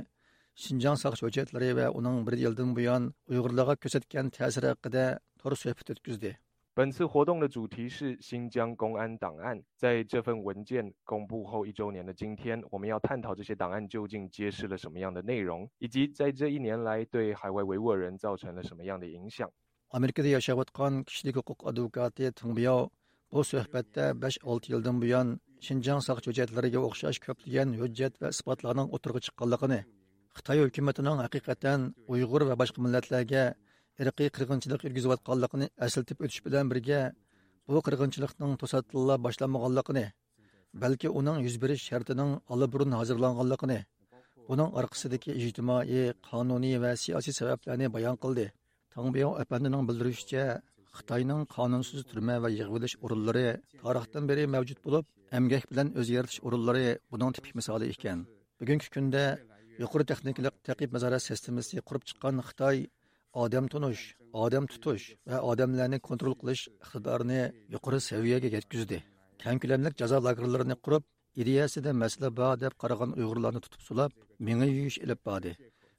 شىنجاڭ ساقچى ھۆججەتلىرى ۋە ئۇنىڭ بىر يىلدىن بۇيان ئۇيغۇرلارغا كۆرسەتكەن تەسىرى ھەققىدە تور سۆھبىتى ئۆتكۈزدى. 本次活动的主题是新疆公安档案。在这份文件公布后一周年的今天，我们要探讨这些档案究竟揭示了什么样的内容，以及在这一年来对海外维吾尔人造成了什么样的影响。 ئامېرىكىدا ياشاۋاتقان كىشىلىك ھوقۇق ئادۋوكاتى تېڭ بياۋ بۇ سۆھبەتتە بەش-ئالتە يىلدىن بۇيان شىنجاڭ ساقچى ھۆججەتلىرىگە ئوخشاش كۆپلىگەن ھۆججەت ۋە ئىسپاتلارنىڭ ئوتتۇرىغا چىققانلىقىنى، خىتاي ھۆكۈمىتىنىڭ ھەقىقەتەن ئۇيغۇر ۋە باشقا مىللەتلەرگە ئىرقىي قىرغىنچىلىق يۈرگۈزۈۋاتقانلىقىنى ئەسلىتىپ ئۆتۈش بىلەن بىرگە، بۇ قىرغىنچىلىقنىڭ توساتتىنلا باشلانمىغانلىقىنى، بەلكى ئۇنىڭ يۈز بېرىش شەرتىنىڭ ئاللىبۇرۇن ھازىرلانغانلىقىنى، بۇنىڭ ئارقىسىدىكى ئىجتىمائىي، قانۇنىي ۋە سىياسىي سەۋەبلەرنى بايان قىلدى. تاڭ بياۋ ئەپەندىنىڭ بىلدۈرۈشىچە، خىتاينىڭ قانۇنسىز تۈرمە ۋە يىغىۋېلىش ئورۇنلىرى تارىختىن بېرى مەۋجۇت بولۇپ، ئەمگەك بىلەن ئۆزى يارىتىش ئورۇنلىرى بۇنىڭ تىپىك مىسالى ئىكەن. بۈگۈنكى كۈندە يۇقىرى تېخنىكىلىق تەقىب نازارەت سىستېمىسى قۇرۇپ چىققان خىتاي ئادەم تونۇش، ئادەم تۇتۇش ۋە ئادەملەرنى كونترول قىلىش ئىقتىدارىنى يۇقىرى سەۋىيەگە يەتكۈزدى. كەڭ كۆلەملىك جازا لاگېرلىرىنى قۇرۇپ، ئىدىيەسىدە مەسىلە بار دەپ قارىغان ئۇيغۇرلارنى تۇتۇپ سولاپ، مېڭە يۇيۇش ئېلىپ باردى.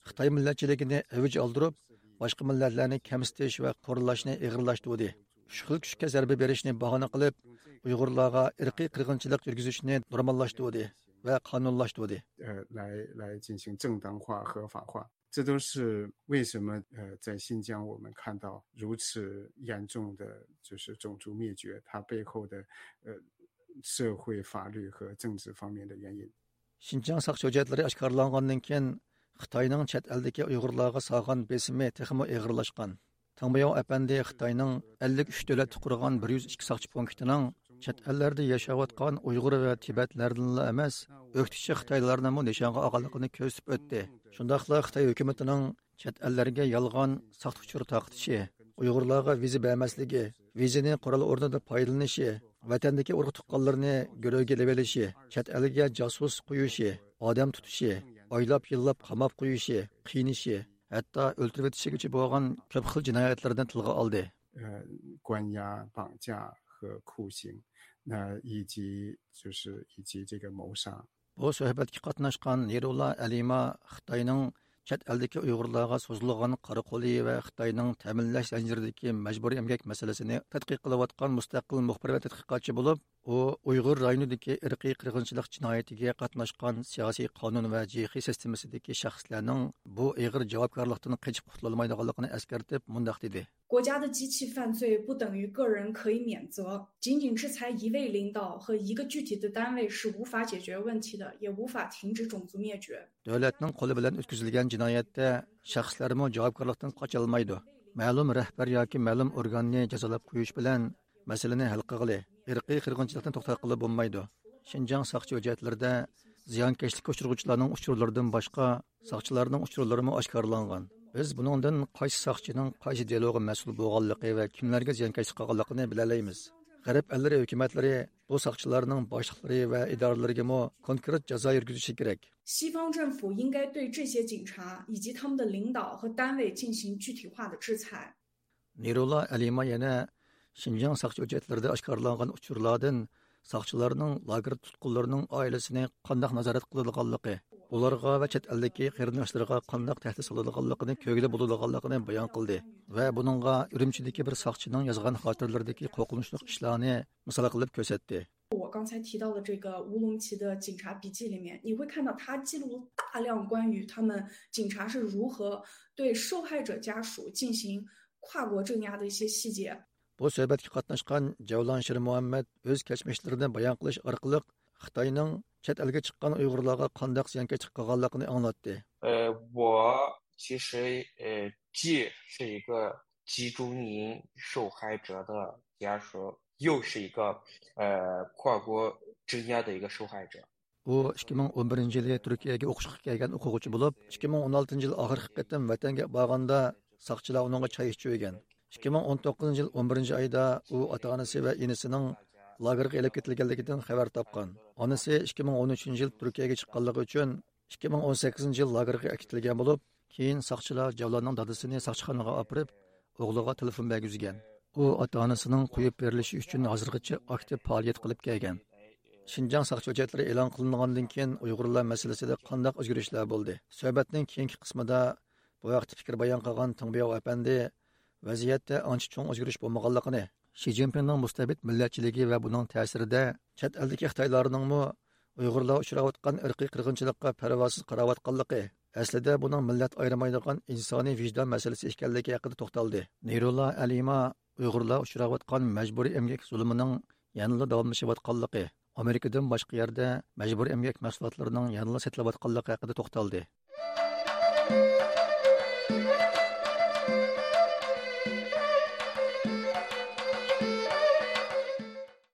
خىتاي مىللەتچىلىكىنى ئەۋج ئالدۇرۇپ، باشقا مىللەتلەرنى كەمسىتىش ۋە قورالاشنى ئېغىرلاشتۇردى. ئۈچ خىل كۈچكە زەربە بېرىشنى باھانە قىلىپ، ئۇيغۇرلارغا ئىرقىي قىرغىنچىلىق يۈرگۈزۈشنى نورماللاشتۇردى ۋە قانۇنلاشتۇردى. 呃，来来进行正当化、合法化。这都是为什么呃，在新疆我们看到如此严重的就是种族灭绝，它背后的呃社会、法律和政治方面的原因。 شىنجاڭ ساقچى ھۆججەتلىرى ئاشكارىلانغاندىن كېيىن، خىتاينىڭ چەت ئەلدىكى ئۇيغۇرلارغا سالغان بېسىمى تېخىمۇ ئېغىرلاشقان. تاڭ بياۋ ئەپەندى خىتاينىڭ ئەللىك ئۈچ دۆلەتتە قۇرغان بىر يۈز ئىككى ساقچى پونكىتىنىڭ چەت ئەللەردە ياشاۋاتقان ئۇيغۇر ۋە تىبەتلەردىنلا ئەمەس، ئۆكتىچى خىتايلارنىمۇ نىشانغا ئالغانلىقىنى كۆرسىتىپ ئۆتتى. شۇنداقلا خىتاي ھۆكۈمىتىنىڭ چەت ئەللەرگە يالغان، ساختا ئۇچۇر تارقىتىشى، ئۇيغۇرلارغا ۋىزا بەرمەسلىكى، ۋىزىنى قورال ئورنىدا پايدىلىنىشى، ۋەتەندىكى ئۇرۇق تۇغقانلىرىنى گۆرۈگە ئېلىۋېلىشى، چەت ئەلگە جاسۇس قويۇشى، ئادەم تۇتۇشى، ئايلاپ يىللاپ قاماپ قويۇشى، قىينىشى، ھەتتا ئۆلتۈرۈۋېتىشىگىچە بولغان كۆپ خىل جىنايەتلەرنى تىلغا ئالدى. 呃，关押、绑架和酷刑，那以及就是以及这个谋杀。 بۇ سۆھبەتكە قاتناشقان نېرۇلا ئەلىما خىتاينىڭ چەت ئەلدىكى ئۇيغۇرلارغا سوزۇلغان قارا قولى ۋە خىتاينىڭ تەمىنلەش زەنجىرىدىكى مەجبۇرىي ئەمگەك مەسىلىسىنى تەتقىق قىلىۋاتقان مۇستەقىل مۇخبىر ۋە تەتقىقاتچى بولۇپ، ئۇ ئۇيغۇر رايونىدىكى ئىرقىي قىرغىنچىلىق جىنايىتىگە قاتناشقان سىياسىي قانۇن ۋە جېخې سىستېمىسىدىكى شەخسلەرنىڭ بۇ ئېغىر جاۋابكارلىقتىن قېچىپ قۇتۇلالمايدىغانلىقىنى ئەسكەرتىپ مۇنداق دېدى. 国家的机器犯罪不等于个人可以免责，仅仅制裁一位领导和一个具体的单位是无法解决问题的，也无法停止种族灭绝。 دۆلەتنىڭ قولى بىلەن ئۆتكۈزۈلگەن جىنايەتتە شەخسلەرمۇ جاۋابكارلىقتىن قاچالمايدۇ. مەلۇم رەھبەر ياكى مەلۇم ئورگاننى جازالاپ قويۇش بىلەن مەسىلىنى ھەل قىلغىلى، ئىرقىي قىرغىنچىلىقنى توختاتقىلى بولمايدۇ. شىنجاڭ ساقچى ھۆججەتلىرىدە زىيانكەشلىككە ئۇچرىغۇچىلارنىڭ ئۇچۇرلىرىدىن باشقا، ساقچىلارنىڭ ئۇچۇرلىرىمۇ ئاشكارىلانغان. بىز بۇنىڭدىن قايسى ساقچىنىڭ قايسى دېلوغا مەسئۇل بولغانلىقى ۋە كىملەرگە زىيانكەشلىك قىلغانلىقىنى بىلەلەيمىز. غەرب ئەللىرى ھۆكۈمەتلىرى بۇ ساقچىلارنىڭ باشلىقلىرى ۋە ئىدارىلىرىگىمۇ كونكرېت جازا يۈرگۈزۈشى كېرەك. 西方政府应该对这些警察以及他们的领导和单位进行具体化的制裁。 نۇرۇللا ئەلىما يەنە شىنجاڭ ساقچى ھۆججەتلىرىدە ئاشكارىلانغان ئۇچۇرلاردىن ساقچىلارنىڭ لاگېر تۇتقۇنلىرىنىڭ ئائىلىسىنى قانداق نازارەت قىلىدىغانلىقى، ئۇلارغا ۋە چەت ئەلدىكى قېرىنداشلىرىغا قانداق تەھدىت سالىدىغانلىقىنى كۆرگىلى بولىدىغانلىقىنى بايان قىلدى ۋە بۇنىڭغا ئۈرۈمچىدىكى بىر ساقچىنىڭ يازغان خاتىرىلىرىدىكى قورقۇنچلۇق ئىشلارنى مىسال قىلىپ كۆرسەتتى. 我刚才提到的这个乌鲁木齐的警察笔记里面，你会看到他记录了大量关于他们警察是如何对受害者家属进行跨国镇压的一些细节。 بۇ سۆھبەتكە قاتناشقان جەۋلان شىرمۇھەممەد ئۆز كەچمىشلىرىنى بايان قىلىش ئارقىلىق خىتاينىڭ چەت ئەلگە چىققان ئۇيغۇرلارغا قانداق زىيانكەشلىك قىلغانلىقىنى ئاڭلاتتى. 呃，我其实呃既是一个集中营受害者的家属，又是一个呃跨国镇压的一个受害者。 ئۇ ئىككى مىڭ ئون بىرىنچى يىلى تۈركىيەگە ئوقۇشقا كەلگەن ئوقۇغۇچى بولۇپ، ئىككى مىڭ ئون ئالتىنچى يىل ئاخىرقى قېتىم ۋەتەنگە بارغاندا ساقچىلار ئۇنىڭغا چاي ئىچۈرگەن. ئىككى مىڭ ئون توققۇزىنچى يىل ئون بىرىنچى ئايدا ئۇ ئاتا-ئانىسى ۋە ئىنىسىنىڭ لاگېرغا ئېلىپ كېتىلگەنلىكىدىن خەۋەر تاپقان. ئانىسى ئىككى مىڭ ئون ئۈچىنچى يىل تۈركىيەگە چىققانلىقى ئۈچۈن ئىككى مىڭ ئون سەككىزىنچى يىل لاگېرغا ئەكېتىلگەن بولۇپ، كېيىن ساقچىلار جەۋلاننىڭ دادىسىنى ساقچىخانىغا ئاپىرىپ، ئوغلىغا تېلېفون بەرگۈزگەن. ئۇ ئاتا-ئانىسىنىڭ قويۇپ بېرىلىشى ئۈچۈن ھازىرغىچە ئاكتىپ پائالىيەت قىلىپ كەلگەن. شىنجاڭ ساقچى ھۆججەتلىرى ئېلان قىلىنغاندىن كېيىن ئۇيغۇرلار مەسىلىسىدە قانداق ئۆزگىرىشلەر بولدى؟ سۆھبەتنىڭ كېيىنكى قىسمىدا بۇ ھەقتە پىكىر بايان قىلغان تېڭبياۋ ئەپەندى ۋەزىيەتتە ئانچە چوڭ ئۆزگىرىش بولمىغانلىقىنى، شى جىنپىڭنىڭ مۇستەبىت مىللەتچىلىكى ۋە بۇنىڭ تەسىرىدە چەت ئەلدىكى خىتايلارنىڭمۇ ئۇيغۇرلار ئۇچراۋاتقان ئىرقىي قىرغىنچىلىققا پەرۋاسىز قاراۋاتقانلىقى، ئەسلىدە بۇنىڭ مىللەت ئايرىمايدىغان ئىنسانىي ۋىجدان مەسىلىسى ئىكەنلىكى ھەققىدە توختالدى. نۇرۇللا ئەلىما ئۇيغۇرلار ئۇچراۋاتقان مەجبۇرىي ئەمگەك زۇلۇمىنىڭ يەنىلا داۋاملىشىۋاتقانلىقى، ئامېرىكىدىن باشقا يەردە مەجبۇرىي ئەمگەك مەھسۇلاتلىرىنىڭ يەنىلا سېتىلىۋاتقانلىقى ھەققىدە توختالدى.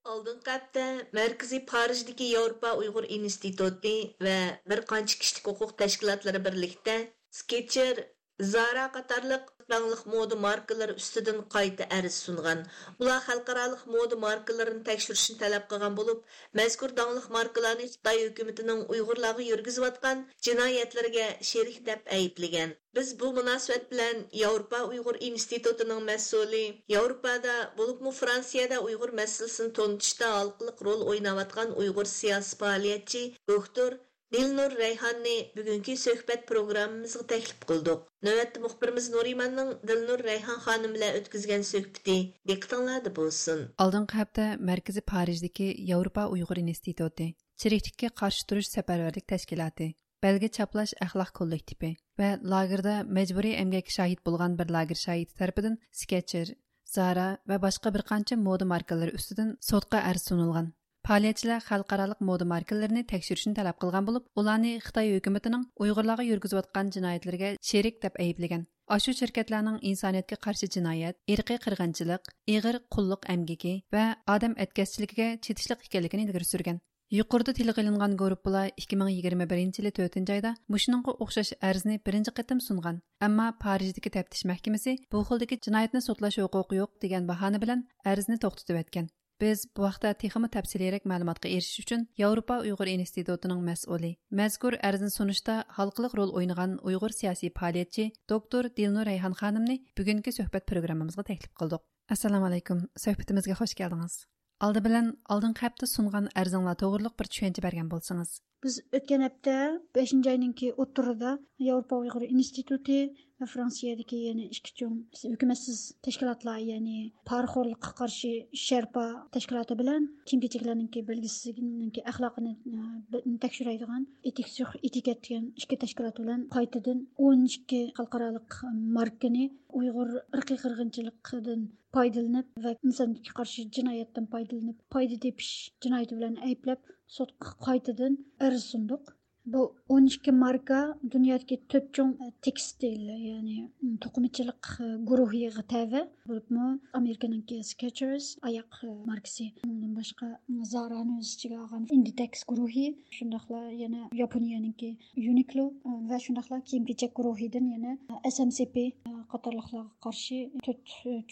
ئالدىنقى ھەپتە مەركىزىي پارىژدىكى ياۋروپا ئۇيغۇر ئىنستىتۇتى ۋە بىر قانچە كىشىلىك ھوقۇق تەشكىلاتلىرى بىرلىكتە سكېچېر، زارا قاتارلىق داڭلىق مودا ماركىلىرى ئۈستىدىن قايتا ئەرز سۇنغان. ئۇلار خەلقئارالىق مودا ماركىلىرىنى تەكشۈرۈشنى تەلەپ قىلغان بولۇپ، مەزكۇر داڭلىق ماركىلارنى خىتاي ھۆكۈمىتىنىڭ ئۇيغۇرلارغا يۈرگۈزۈۋاتقان جىنايەتلىرىگە شېرىك دەپ ئەيىبلىگەن. بىز بۇ مۇناسىۋەت بىلەن ياۋروپا ئۇيغۇر ئىنستىتۇتىنىڭ مەسئۇلى، ياۋروپادا، بولۇپمۇ فرانسىيەدە ئۇيغۇر مەسىلىسىنى تونۇتۇشتا ھالقىلىق رول ئويناۋاتقان ئۇيغۇر سىياسىي پائالىيەتچى دوكتور دىلنۇر رەيھاننى بۈگۈنكى سۆھبەت پروگراممىمىزغا تەكلىپ قىلدۇق. نۆۋەتتە مۇخبىرىمىز نۇرىماننىڭ دىلنۇر رەيھان خانىم بىلەن ئۆتكۈزگەن سۆھبىتى دىققىتىڭلاردا بولسۇن. ئالدىنقى ھەپتە مەركىزىي پارىژدىكى ياۋروپا ئۇيغۇر ئىنستىتۇتى، چىرىكلىككە قارشى تۇرۇش سەپەرۋەرلىك تەشكىلاتى، بەلگە چاپلاش ئەخلاق كوللېكتىپى ۋە لاگېردا مەجبۇرىي ئەمگەككە شاھىت بولغان بىر لاگېر شاھىتى تەرىپىدىن سكېچېر، زارا ۋە باشقا بىر قانچە مودا ماركىلىرى ئۈستىدىن سوتقا ئەرز سۇنۇلغان. پائالىيەتچىلەر خەلقئارالىق مودا ماركىلىرىنى تەكشۈرۈشنى تەلەپ قىلغان بولۇپ، ئۇلارنى خىتاي ھۆكۈمىتىنىڭ ئۇيغۇرلارغا يۈرگۈزۈۋاتقان جىنايەتلىرىگە شېرىك دەپ ئەيىبلىگەن. ئاشۇ شىركەتلەرنىڭ ئىنسانىيەتكە قارشى جىنايەت، ئىرقىي قىرغىنچىلىق، ئېغىر قۇللۇق ئەمگىكى ۋە ئادەم ئەتكەسچىلىكىگە چېتىشلىق ئىكەنلىكىنى ئىلگىرى سۈرگەن. يۇقىرىدا تىلغا ئېلىنغان گۇرۇپپىلار ئىككى مىڭ يىگىرمە بىرىنچى يىلى تۆتىنچى ئايدا مۇشۇنىڭغا ئوخشاش ئەرزنى بىرىنچى قېتىم سۇنغان، ئەمما پارىژدىكى تەپتىش مەھكىمىسى بۇ خىلدىكى جىنايەتنى سوتلاش ھوقۇقى يوق دېگەن باھانە بىلەن ئەرزنى توختىتىۋەتكەن. بىز بۇ ھەقتە تېخىمۇ تەپسىلىيرەك مەلۇماتقا ئېرىشىش ئۈچۈن ياۋروپا ئۇيغۇر ئىنستىتۇتىنىڭ مەسئۇلى، مەزكۇر ئەرزنى سۇنۇشتا ھالقىلىق رول ئوينىغان ئۇيغۇر سىياسىي پائالىيەتچى دوكتور دىلنۇر رەيھان خانىمنى بۈگۈنكى سۆھبەت پروگراممىمىزغا تەكلىپ قىلدۇق. ئەسسالامۇئەلەيكۇم، سۆھبىتىمىزگە خوش كەلدىڭىز. ئالدى بىلەن ئالدىنقى ھەپتە سۇنغان ئەرزىڭلار توغرۇلۇق بىر چۈشەنچە بەرگەن بولسىڭىز. بىز ئۆتكەن ھەپتە بەشىنچى ئاينىڭكى ئوتتۇرىدا ياۋروپا ئۇيغۇر ئىنستىتۇتى ۋە فرانسىيەدىكى يەنە ئىككى چوڭ ھۆكۈمەتسىز تەشكىلاتلار، يەنى پارىخورلۇققا قارشى شەرپا تەشكىلاتى بىلەن كىيىم كېچەكلەرنىڭكى بەلگىسىزلىكىنىڭكى ئەخلاقىنى، ئە، تەكشۈرەيدىغان ئېتىكس سۇخ ئېتىكەت دېگەن ئىككى تەشكىلات بىلەن قايتىدىن ئون ئىككى خەلقئارالىق ماركىنى ئۇيغۇر ئىرقىي قىرغىنچىلىقىدىن پايدىلىنىپ ۋە ئىنسانىيەتكە قارشى جىنايەتتىن پايدىلىنىپ، پايدا تېپىش جىنايىتى بىلەن ئەيىبلەپ، سوتقا قايتىدىن ئەرز سۇندۇق. بۇ ئون ئىككى ماركا دۇنيادىكى تۆت چوڭ تېكستىل، يەنى توقۇمىچىلىق گۇرۇھىغا تەۋە. بولۇپمۇ ئامېرىكىنىڭكى سكېچېرس ئاياق ماركىسى، ئۇنىڭدىن باشقا زارانى ئۆز ئىچىگە ئالغان ئىندىتېكس گۇرۇھى، شۇنداقلا يەنە ياپونىيەنىڭكى يۇنىكلو ۋە شۇنداقلا كىيىم كېچەك گۇرۇھىدىن يەنە ئەس ئەم سى پى قاتارلىقلارغا قارشى تۆت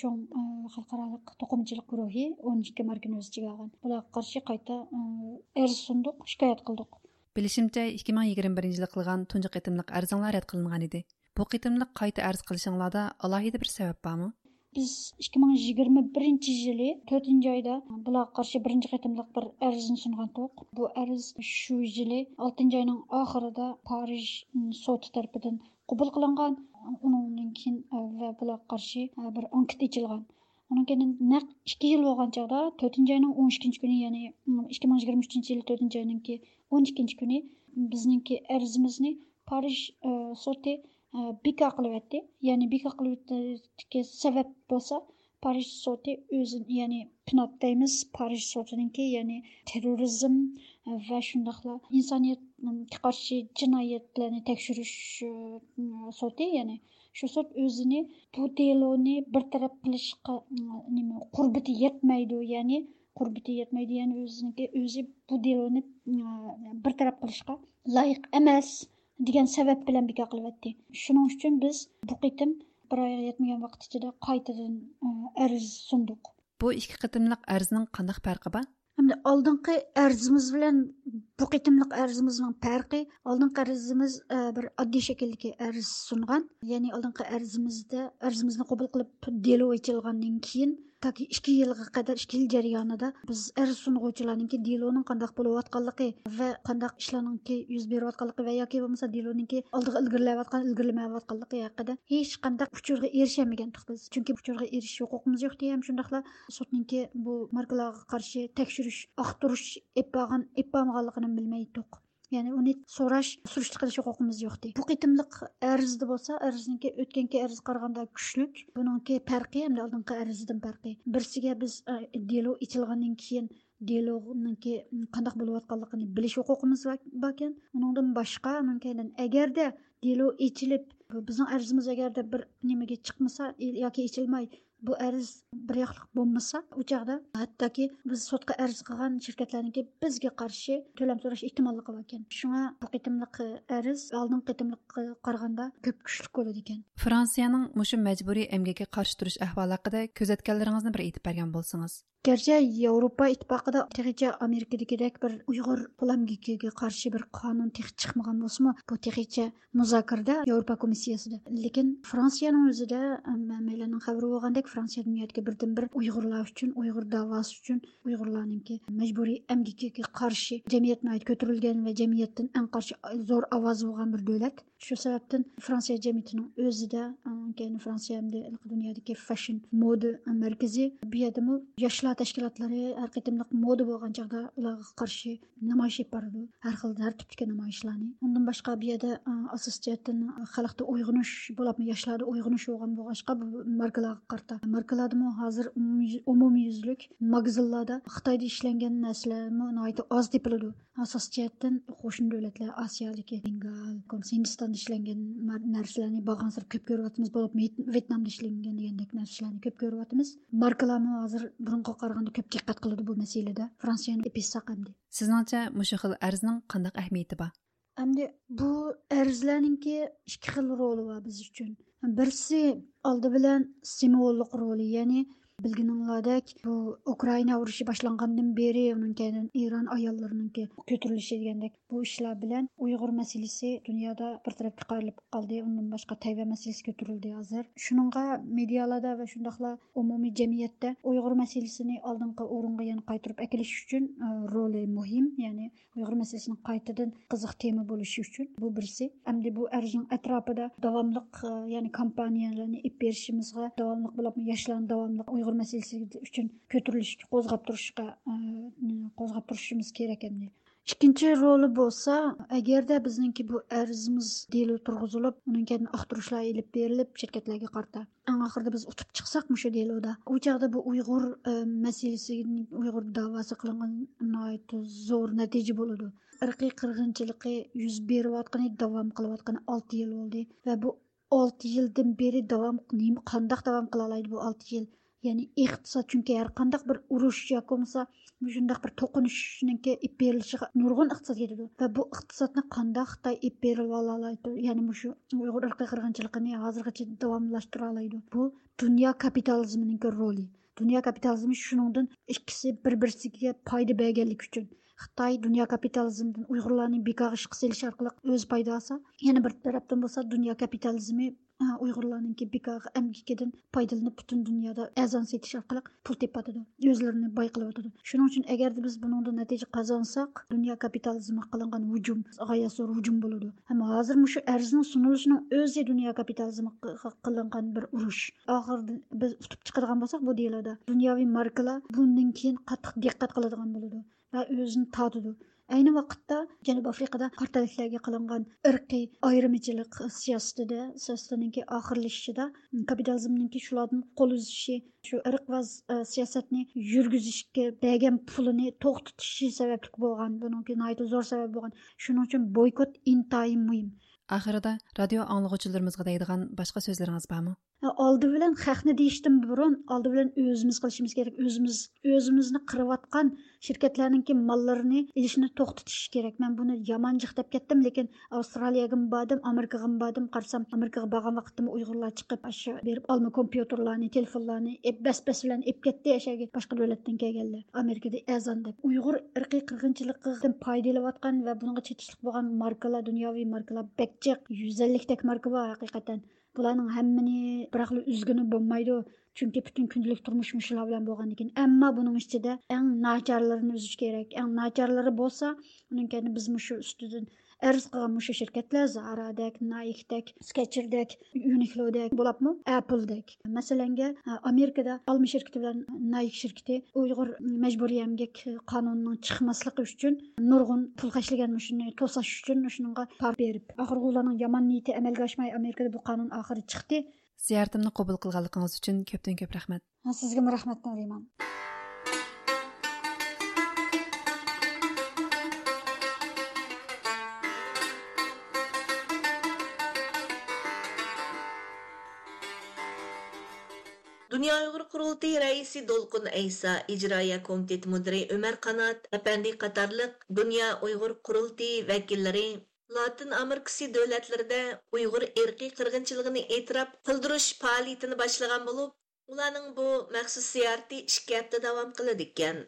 چوڭ خەلقئارالىق توقۇمىچىلىق گۇرۇھى ئون ئىككى ماركىنى ئۆز ئىچىگە ئالغان. بۇلارغا قارشى قايتا ئەرز سۇندۇق، شىكايەت قىلدۇق. بىلىشىمچە، ئىككى مىڭ يىگىرمە بىرىنچى يىلى قىلغان تۇنجى قېتىملىق ئەرزىڭلار رەت قىلىنغان ئىدى. بۇ قېتىملىق قايتا ئەرز قىلىشىڭلاردا ئالاھىدە بىر سەۋەب بارمۇ؟ بىز ئىككى مىڭ يىگىرمە بىرىنچى يىلى تۆتىنچى ئايدا بۇلارغا قارشى بىرىنچى قېتىملىق بىر ئەرزنى سۇنغانتۇق. بۇ ئەرز شۇ يىلى ئالتىنچى ئاينىڭ ئاخىرىدا پارىژ سوتى تەرىپىدىن قوبۇل قىلىنغان. ئۇنىڭدىن كېيىن ۋە بۇلارغا قارشى بىر ئانكېت ئېچىلغان. ئۇنىڭ كېيىن نەق ئىككى يىل بولغان چاغدا، تۆتىنچى ئاينىڭ ئون ئىككىنچى كۈنى، يەنى ئىككى مىڭ يىگىرمە ئۈچىنچى يىلى تۆتىنچى ئاينىڭكى ئون ئىككىنچى كۈنى بىزنىڭكى ئەرزىمىزنى پارىژ سوتى بىكار قىلىۋەتتى. يەنى بىكار قىلىۋېتىشتىكى سەۋەب بولسا، پارىژ سوتى ئۆزىنى، يەنى پنات دەيمىز، پارىژ سوتىنىڭكى، يەنى تېررورىزم ۋە شۇنداقلا ئىنسانىيەتكە قارشى جىنايەتلەرنى تەكشۈرۈش سوتى، يەنى شۇ سوت ئۆزىنى بۇ دېلونى بىر تەرەپ قىلىشقا، نېمە، قۇربىتى يەتمەيدۇ، يەنى قۇربىتى يەتمەيدۇ، يەنى ئۆزىنىڭكى ئۆزى بۇ دېلونى بىر تەرەپ قىلىشقا لايىق ئەمەس دېگەن سەۋەب بىلەن بىكار قىلىۋەتتى. شۇنىڭ ئۈچۈن بىز بۇ قېتىم بىر ئايغا يەتمىگەن ۋاقىت ئىچىدە قايتىدىن ئەرز سۇندۇق. بۇ ئىككى قېتىملىق ئەرزنىڭ قانداق پەرقى بار؟ ئەمدى ئالدىنقى ئەرزىمىز بىلەن بۇ قېتىملىق ئەرزىمىزنىڭ پەرقى، ئالدىنقى ئەرزىمىز بىر ئاددىي شەكىلدىكى ئەرز سۇنغان. يەنى ئالدىنقى ئەرزىمىزدە، ئەرزىمىزنى قوبۇل قىلىپ دېلو ئېچىلغاندىن كېيىن، تاكى ئىككى يىلغا قەدەر، ئىككى يىل جەريانىدا بىز ئەرز سۇنغۇچىلارنىڭكى دېلونىڭ قانداق بولۇۋاتقانلىقى ۋە قانداق ئىشلارنىڭكى يۈز بېرىۋاتقانلىقى ۋە ياكى بولمىسا دېلونىڭكى ئالدىغا ئىلگىرىلەۋاتقان، ئىلگىرىلىمەيۋاتقانلىقى ھەققىدە ھېچقانداق ئۇچۇرغا ئېرىشەلمىگەنتۇق بىز. چۈنكى ئۇچۇرغا ئېرىشىش ھوقۇقىمىز يوقتى، ھەم شۇنداقلا سوتنىڭكى بۇ ماركىلارغا قارشى تەكشۈرۈش، ئاختۇرۇش ئېلىپ بارغان، ئېلىپ بارمىغانلىقىنى بىلمەيتتۇق. يەنى ئۇنى سوراش، سۈرۈشتە قىلىش ھوقۇقىمىز يوقتى. بۇ قېتىملىق ئەرزدە بولسا، ئەرزنىڭكى ئۆتكەنكى ئەرزگە قارىغاندا كۈچلۈك. بۇنىڭكى پەرقى ھەمدە ئالدىنقى ئەرزدىن پەرقى. بىرسىگە بىز، ئە، دېلو ئېچىلغاندىن كېيىن دېلونىڭكى قانداق بولۇۋاتقانلىقىنى بىلىش ھوقۇقىمىز بار، باركەن. ئۇنىڭدىن باشقا، ئۇنىڭ كەينىدىن ئەگەردە دېلو ئېچىلىپ، بۇ بىزنىڭ ئەرزىمىز ئەگەردە بىر نېمىگە چىقمىسا، ياكى ئېچىلماي، بۇ ئەرز بىر ياقلىق بولمىسا، ئۇ چاغدا ھەتتاكى بىز سوتقا ئەرز قىلغان شىركەتلەرنىڭكى بىزگە قارشى تۆلەم سوراش ئېھتىماللىقى باركەن. شۇڭا بۇ قېتىملىق ئەرز ئالدىنقى قېتىملىققا قارىغاندا كۆپ كۈچلۈك بولىدىكەن. فرانسىيەنىڭ مۇشۇ مەجبۇرىي ئەمگەككە قارشى تۇرۇش ئەھۋالى ھەققىدە كۆزەتكەنلىرىڭىزنى بىر ئېيتىپ بەرگەن بولسىڭىز. گەرچە ياۋروپا ئىتتىپاقىدا تېخىچە ئامېرىكىدىكىدەك بىر ئۇيغۇر قول ئەمگىكىگە قارشى بىر قانۇن تېخى چىقمىغان بولسىمۇ، بۇ تېخىچە مۇزاكىرىدە ياۋروپا كومىسسىيەسىدە. لېكىن فرانسىيەنىڭ ئۆزىدە، ھەممەيلەننىڭ خەۋىرى بولغاندەك، فرانسىيە دۇنيادىكى بىردىنبىر ئۇيغۇرلار ئۈچۈن، ئۇيغۇر داۋاسى ئۈچۈن، ئۇيغۇرلارنىڭكى مەجبۇرىي ئەمگىكىگە قارشى جەمئىيەت ناھايىتى كۆتۈرۈلگەن ۋە جەمئىيەتتىن ئەڭ قارشى زور ئاۋازى بولغان بىر دۆلەت. شۇ سەۋەبتىن فرانسىيە جەمئىيىتىنىڭ ئۆزىدە، ئۇنىڭ كەينى فرانسىيە ھەمدە دۇنيادىكى فەشن مودا مەركىزى، بۇ يەردىمۇ ياشلار تەشكىلاتلىرى ھەر قېتىملىق مودا بولغان چاغدا ئۇلارغا قارشى نامايىش ئېلىپ بارىدۇ. ھەر خىل، ھەر تىپتىكى نامايىشلارنى. ئۇندىن باشقا، بۇ يەردە، ئاساسىي جەھەتتىن خەلقتە ئويغىنىش بولۇپمۇ ياشلاردا ئويغىنىش بولغان بولغاچقا، بۇ ماركىلارغا قارىتا. ماركىلاردىمۇ ھازىر ئومۇميۈز-، ئومۇميۈزلۈك ماگىزىنلاردا خىتايدا ئىشلەنگەن نەرسىلەرمۇ ناھايىتى ئاز تېپىلىدۇ. ئاساسىي جەھەتتىن قوشنا دۆلەتلەر، ئاسىيادىكى بېنگال، ھىندىستاندا ئىشلەنگەن مار-، نەرسىلەرنى بارغانسېرى كۆپ كۆرۈۋاتىمىز، بولۇپمۇ ۋيت-، ۋيتنامدا ئىشلەنگەن دېگەندەك نەرسىلەرنى كۆپ كۆرۈۋاتىمىز. ماركىلارمۇ ھازىر بۇرۇنقىغا قارىغاندا كۆپ دىققەت قىلىدۇ بۇ مەسىلىدە. فرانسىيەنى ئېپىشساق ئەمدى. سىزنىڭچە مۇشۇ خىل ئەرزنىڭ قانداق ئەھمىيىتى بار؟ ئەمدى بۇ ئەرزلەرنىڭكى ئىككى خىل رولى بار بىز ئۈچۈن. بىرسى ئالدى بىلەن سىمۋوللۇق رولى، يەنى بىلگىنىڭلاردەك، بۇ ئۇكرائىنا ئۇرۇشى باشلانغاندىن بېرى، ئۇنىڭ كەينىدىن ئىران ئاياللىرىنىڭكى كۆتۈرۈلۈشى دېگەندەك، بۇ ئىشلار بىلەن ئۇيغۇر مەسىلىسى دۇنيادا بىر تەرەپكە قايرىلىپ قالدى. ئۇندىن باشقا تەيۋەن مەسىلىسى كۆتۈرۈلدى ھازىر. شۇنىڭغا مېدىيالاردا ۋە شۇنداقلا ئومۇمىي جەمئىيەتتە ئۇيغۇر مەسىلىسىنى ئالدىنقى ئورۇنغا يەنە قايتۇرۇپ ئەكېلىش ئۈچۈن، ئە، رولى مۇھىم. يەنى ئۇيغۇر مەسىلىسىنىڭ قايتىدىن قىزىق تېما بولۇشى ئۈچۈن بۇ بىرسى. ئەمدى بۇ ئەرزنىڭ ئەتراپىدا داۋاملىق، ئە، يەنى كامپانىيەلەرنى ئېلىپ بېرىشىمىزغا، داۋاملىق بولۇپمۇ ياشلارنى داۋاملىق ئۇيغۇر مەسىلىسى ئۈچۈن كۆتۈرۈلۈشكە، قوزغاپ تۇرۇشقا، ئە، قوزغاپ تۇرۇشىمىز كېرەك ئەمدى. ئىككىنچى رولى بولسا، ئەگەردە بىزنىڭكى بۇ ئەرزىمىز دېلو تۇرغۇزۇلۇپ، ئۇنىڭ كەينىدىن ئاختۇرۇشلار ئېلىپ بېرىلىپ، شىركەتلەرگە قارىتا، ئەڭ ئاخىرىدا بىز ئۇتۇپ چىقساق مۇشۇ دېلودا، ئۇ چاغدا بۇ ئۇيغۇر، ئە، مەسىلىسى، ئۇيغۇر داۋاسى قىلىنغان ناھايىتى زور نەتىجە بولىدۇ. ئىرقىي قىرغىنچىلىقى يۈز بېرىۋاتقىنى، داۋام قىلىۋاتقىنى ئالتە يىل بولدى ۋە بۇ ئالتە يىلدىن بېرى داۋام، نېمە، قانداق داۋام قىلالايدۇ بۇ ئالتە يىل؟ يەنى ئىقتىساد، چۈنكى ھەر قانداق بىر ئۇرۇش ياكى بولمىسا مۇشۇنداق بىر توقۇنۇشنىڭكى ئېلىپ بېرىلىشىغا نۇرغۇن ئىقتىساد كېتىدۇ ۋە بۇ ئىقتىسادنى قانداق خىتاي ئېلىپ بېرىۋالالايدۇ؟ يەنى مۇشۇ ئۇيغۇر ئىرقىي قىرغىنچىلىقىنى ھازىرغىچە داۋاملاشتۇرالايدۇ؟ بۇ دۇنيا كاپىتالىزمىنىڭكى رولى. دۇنيا كاپىتالىزمى شۇنىڭدىن ئىككىسى بىر-بىرسىگە پايدا بەرگەنلىكى ئۈچۈن، خىتاي دۇنيا كاپىتالىزمىدىن ئۇيغۇرلارنى بىكارغا ئىشقا سېلىش ئارقىلىق ئۆزى پايدا ئالسا، يەنە بىر تەرەپتىن بولسا دۇنيا كاپىتالىزمى، ئا، ئۇيغۇرلارنىڭكى بىكارغا ئەمگىكىدىن پايدىلىنىپ پۈتۈن دۇنيادا ئەرزان سېتىش ئارقىلىق پۇل تېپىۋاتىدۇ، ئۆزلىرىنى باي قىلىۋاتىدۇ. شۇنىڭ ئۈچۈن ئەگەردە بىز بۇنىڭدىن نەتىجە قازانساق، دۇنيا كاپىتالىزمىغا قىلىنغان ھۇجۇم غايەت زور ھۇجۇم بولىدۇ. ھەم ھازىر مۇشۇ ئەرزنىڭ سۇنۇلۇشىنىڭ ئۆزى دۇنيا كاپىتالىزمىغا قىلىنغان بىر ئۇرۇش. ئاخىرىدا بىز ئۇتۇپ چىقىدىغان بولساق بۇ دېلودا، دۇنياۋى ماركىلار بۇندىن كېيىن قاتتىق دىققەت قىلىدىغان بولىدۇ ۋە ئۆزىنى تارتىدۇ. ئەينى ۋاقىتتا جەنۇبىي ئافرىقىدا قارا تەنلىكلەرگە قىلىنغان ئىرقىي ئايرىمىچىلىق سىياسىتىدە، سىياسىتىنىڭكى ئاخىرلىشىشىدا، كاپىتالىزمنىڭكى شۇلاردىن قول ئۈزۈشى، شۇ ئىرقۋاز، ئە، سىياسەتنى يۈرگۈزۈشكە بەرگەن پۇلىنى توختىتىشى سەۋەبلىك بولغان، بۇنىڭكى ناھايىتى زور سەۋەب بولغان. شۇنىڭ ئۈچۈن بويكوت ئىنتايىن مۇھىم. ئاخىرىدا رادىيو ئاڭلىغۇچىلىرىمىزغا دەيدىغان باشقا سۆزلىرىڭىز بارمۇ؟ ئالدى بىلەن خەقنى دېيىشتىن بۇرۇن، ئالدى بىلەن ئۆزىمىز قىلىشىمىز كېرەك. ئۆزىمىز، ئۆزىمىزنى قىرىۋاتقان شىركەتلەرنىڭكى ماللىرىنى ئېلىشنى توختىتىش كېرەك. مەن بۇنى يامان جىق دەپ كەتتىم، لېكىن ئاۋسترالىيەگىمۇ باردىم، ئامېرىكىغىمۇ باردىم. قارىسام، ئامېرىكىغا بارغان ۋاقىتتىمۇ ئۇيغۇرلار چىقىپ، ئاشۇ بېرىپ ئالما كومپيۇتېرلارنى، تېلېفونلارنى ئېپ، بەس-بەس بىلەن ئېپ كەتتى، ئەشەگە باشقا دۆلەتتىن كەلگەنلەر. ئامېرىكىدا ئەرزان دەپ. ئۇيغۇر ئىرقىي قىرغىنچىلىقىدىن پايدىلىنىۋاتقان ۋە بۇنىڭغا چېتىشلىق بولغان ماركىلار، دۇنياۋى ماركىلار بەك جىق، يۈز ئەللىكتەك ماركا بار ھەقىقەتەن. بۇلارنىڭ ھەممىنى بىراقلا ئۈزگىلى بولمايدۇ. چۈنكى پۈتۈن كۈندىلىك تۇرمۇش مۇشۇلار بىلەن بولغاندىكىن. ئەمما بۇنىڭ ئىچىدە ئەڭ ناچارلىرىنى ئۈزۈش كېرەك. ئەڭ ناچارلىرى بولسا، ئۇنىڭ كەينىدە بىز مۇشۇ ئۈستىدىن ئەرز قىلغان مۇشۇ شىركەتلەر، زارادەك، نايكدەك، سكەچېردەك، يۇنىكلودەك، بولۇپمۇ ئەپلدەك. مەسىلەنگە، ئامېرىكىدا ئالما شىركىتى بىلەن نايك شىركىتى ئۇيغۇر مەجبۇرىي ئەمگەك قانۇنىنىڭ چىقماسلىقى ئۈچۈن نۇرغۇن پۇل خەجلىگەن، مۇشۇنى توساش ئۈچۈن شۇنىڭغا پار بېرىپ. ئاخىرغا ئۇلارنىڭ يامان نىيىتى ئەمەلگە ئاشماي، ئامېرىكىدا بۇ قانۇن ئاخىرى چىقتى. زىيارىتىمنى قوبۇل قىلغانلىقىڭىز ئۈچۈن كۆپتىن كۆپ رەھمەت. سىزگىمۇ رەھمەت، نۇرىمان. دۇنيا ئۇيغۇر قۇرۇلتىيى رەئىسى دولقۇن ئەيسا، ئىجرائىيە كومىتېتى مۇدىرى ئۆمەر قانات ئەپەندى قاتارلىق دۇنيا ئۇيغۇر قۇرۇلتىيى ۋەكىللىرى لاتىن ئامېرىكىسى دۆلەتلىرىدە ئۇيغۇر ئىرقىي قىرغىنچىلىقىنى ئېتىراپ قىلدۇرۇش پائالىيىتىنى باشلىغان بولۇپ، ئۇلارنىڭ بۇ مەخسۇس زىيارىتى ئىككى ھەپتە داۋام قىلىدىكەن.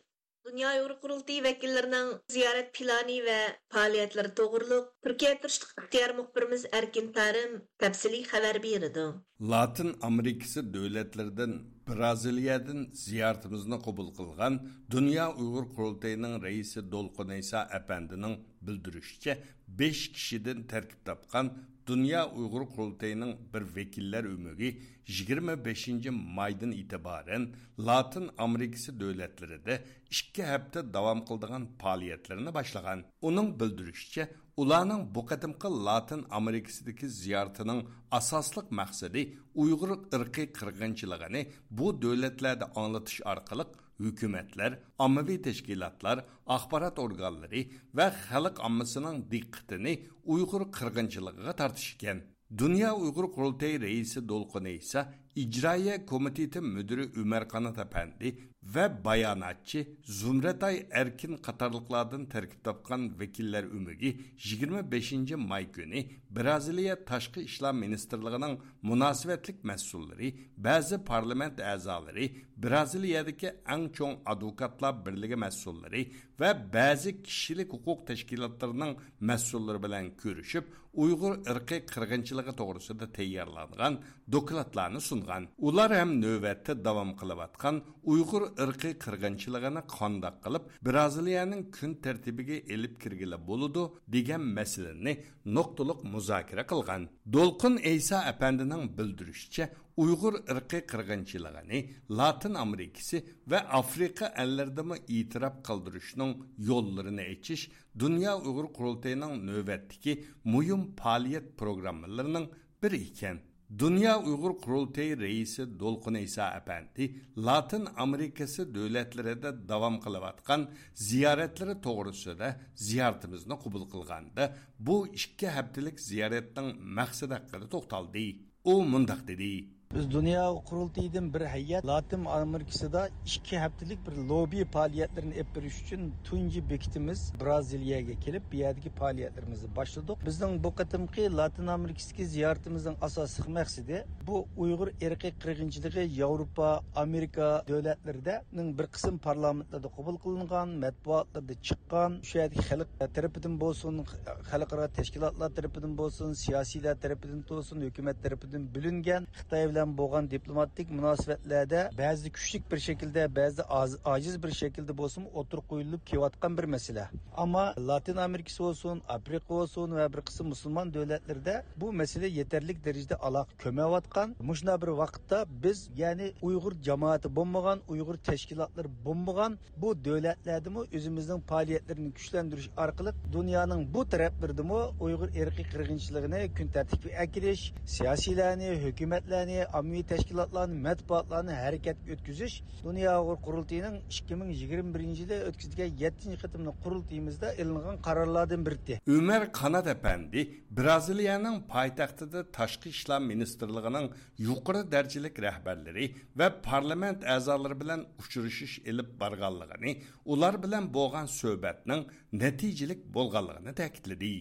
دۇنيا ئۇيغۇر قۇرۇلتىيى ۋەكىللىرىنىڭ زىيارەت پىلانى ۋە پائالىيەتلىرى توغرۇلۇق تۈركىيە تۇرۇشلۇق ئىختىيار مۇخبىرىمىز ئەركىن تارىم تەپسىلىي خەۋەر بېرىدۇ. لاتىن ئامېرىكىسى دۆلەتلىرىدىن، بىرازىلىيەدىن زىيارىتىمىزنى قوبۇل قىلغان دۇنيا ئۇيغۇر قۇرۇلتىيىنىڭ رەئىسى دولقۇن ئەيسا ئەپەندىنىڭ بىلدۈرۈشىچە، بەش كىشىدىن تەركىب تاپقان دۇنيا ئۇيغۇر قۇرۇلتىيىنىڭ بىر ۋەكىللەر ئۆمىكى يىگىرمە بەشىنچى مايدىن ئېتىبارەن لاتىن ئامېرىكىسى دۆلەتلىرىدە ئىككى ھەپتە داۋام قىلىدىغان پائالىيەتلىرىنى باشلىغان. ئۇنىڭ بىلدۈرۈشىچە، ئۇلارنىڭ بۇ قېتىمقى لاتىن ئامېرىكىسىدىكى زىيارىتىنىڭ ئاساسلىق مەقسىتى ئۇيغۇر ئىرقىي قىرغىنچىلىقىنى بۇ دۆلەتلەردە ئاڭلىتىش ئارقىلىق ھۆكۈمەتلەر، ئاممىۋى تەشكىلاتلار، ئاخبارات ئورگانلىرى ۋە خەلق ئاممىسىنىڭ دىققىتىنى ئۇيغۇر قىرغىنچىلىقىغا تارتىش ئىكەن. دۇنيا ئۇيغۇر قۇرۇلتىيى رەئىسى دولقۇن ئەيسا، ئىجرائىيە كومىتېتى مۇدىرى ئۆمەر قانات ئەپەندى ۋە باياناتچى زۇمرەتئاي ئەركىن قاتارلىقلاردىن تەركىب تاپقان ۋەكىللەر ئۆمىكى يىگىرمە بەشىنچى ماي كۈنى بىرازىلىيە تاشقى ئىشلار مىنىستىرلىقىنىڭ مۇناسىۋەتلىك مەسئۇللىرى، بەزى پارلامېنت ئەزالىرى، بىرازىلىيەدىكى ئەڭ چوڭ ئادۋوكاتلار بىرلىكى مەسئۇللىرى ۋە بەزى كىشىلىك ھوقۇق تەشكىلاتلىرىنىڭ مەسئۇللىرى بىلەن كۆرۈشۈپ، ئۇيغۇر ئىرقىي قىرغىنچىلىقى توغرىسىدا تەييارلانغان دوكلاتلارنى سۇنغان. ئۇلار ھەم نۆۋەتتە داۋام قىلىۋاتقان ئۇيغۇر ئىرقىي قىرغىنچىلىقىنى قانداق قىلىپ بىرازىلىيەنىڭ كۈن تەرتىپىگە ئېلىپ كىرگىلى بولىدۇ، دېگەن مەسىلىنى نۇقتىلىق مۇزاكىرە قىلغان. دولقۇن ئەيسا ئەپەندىنىڭ بىلدۈرۈشىچە، ئۇيغۇر ئىرقىي قىرغىنچىلىقىنى لاتىن ئامېرىكىسى ۋە ئافرىقا ئەللىرىدىمۇ ئېتىراپ قىلدۇرۇشنىڭ يوللىرىنى ئېچىش دۇنيا ئۇيغۇر قۇرۇلتىيىنىڭ نۆۋەتتىكى مۇھىم پائالىيەت پروگراممىلىرىنىڭ بىرى ئىكەن. دۇنيا ئۇيغۇر قۇرۇلتىيى رەئىسى دولقۇن ئەيسا ئەپەندى لاتىن ئامېرىكىسى دۆلەتلىرىدە داۋام قىلىۋاتقان زىيارەتلىرى توغرىسىدا زىيارىتىمىزنى قوبۇل قىلغاندا، بۇ ئىككى ھەپتىلىك زىيارەتنىڭ مەقسىتى ھەققىدە توختالدى. ئۇ مۇنداق دېدى. بىز دۇنيا قۇرۇلتىيىدىن بىر ھەيئەت لاتىن ئامېرىكىسىدا ئىككى ھەپتىلىك بىر لوببى پائالىيەتلىرىنى ئېلىپ بېرىش ئۈچۈن تۇنجى بېكىتىمىز برازىلىيەگە كېلىپ، بۇ يەردىكى پائالىيەتلىرىمىزنى باشلىدۇق. بىزنىڭ بۇ قېتىمقى لاتىن ئامېرىكىسىدىكى زىيارىتىمىزنىڭ ئاساسلىق مەقسىتى بۇ ئۇيغۇر ئىرقىي قىرغىنچىلىقى ياۋروپا، ئامېرىكا دۆلەتلىرىدە نىڭ بىر قىسىم پارلامېنتلاردا قوبۇل قىلىنغان، مەتبۇئاتلاردا چىققان، شۇ يەردىكى خەلق تەرىپىدىن بولسۇن، خەلقئارا تەشكىلاتلار تەرىپىدىن بولسۇن، سىياسىيلەر تەرىپىدىن بولسۇن، ھۆكۈمەت تەرىپىدىن بۆلۈنگەن خىتاي بىلەن بولغان دىپلوماتىك مۇناسىۋەتلەردە بەزىدە كۈچلۈك بىر شەكىلدە، بەزىدە ئاز-، ئاجىز بىر شەكىلدە بولسىمۇ ئوتتۇرىغا قويۇلۇپ كېلىۋاتقان بىر مەسىلە. ئەمما لاتىن ئامېرىكىسى بولسۇن، ئافرىقا بولسۇن ۋە بىر قىسىم مۇسۇلمان دۆلەتلىرىدە بۇ مەسىلە يېتەرلىك دەرىجىدە ئالاقە كۆرمەيۋاتقان. مۇشۇنداق بىر ۋاقىتتا بىز، يەنى ئۇيغۇر جامائىتى بولمىغان، ئۇيغۇر تەشكىلاتلىرى بولمىغان بۇ دۆلەتلەردىمۇ ئۆزىمىزنىڭ پائالىيەتلىرىنى كۈچلەندۈرۈش ئارقىلىق دۇنيانىڭ بۇ تەرەپلىرىدىمۇ ئۇيغۇر ئىرقىي قىرغىنچىلىقىنى كۈن تەرتىپكە ئەكېلىش، سىياسىيلەرنى، ھۆكۈمەتلەرنى، ئاممىۋى تەشكىلاتلارنى، مەتبۇئاتلارنى ھەرىكەتكە ئۆتكۈزۈش، دۇنيا ئۇيغۇر قۇرۇلتىيىنىڭ ئىككى مىڭ يىگىرمە بىرىنچى يىلى ئۆتكۈزگەن يەتتىنچى قېتىملىق قۇرۇلتىيىمىزدا ئېلىنغان قارارلاردىن بىرى. ئۆمەر قانات ئەپەندى برازىلىيەنىڭ پايتەختىدە تاشقى ئىشلار مىنىستىرلىقىنىڭ يۇقىرى دەرىجىلىك رەھبەرلىرى ۋە پارلامېنت ئەزالىرى بىلەن ئۇچرىشىش ئېلىپ بارغانلىقىنى، ئۇلار بىلەن بولغان سۆھبەتنىڭ نەتىجىلىك بولغانلىقىنى تەكىتلىدى.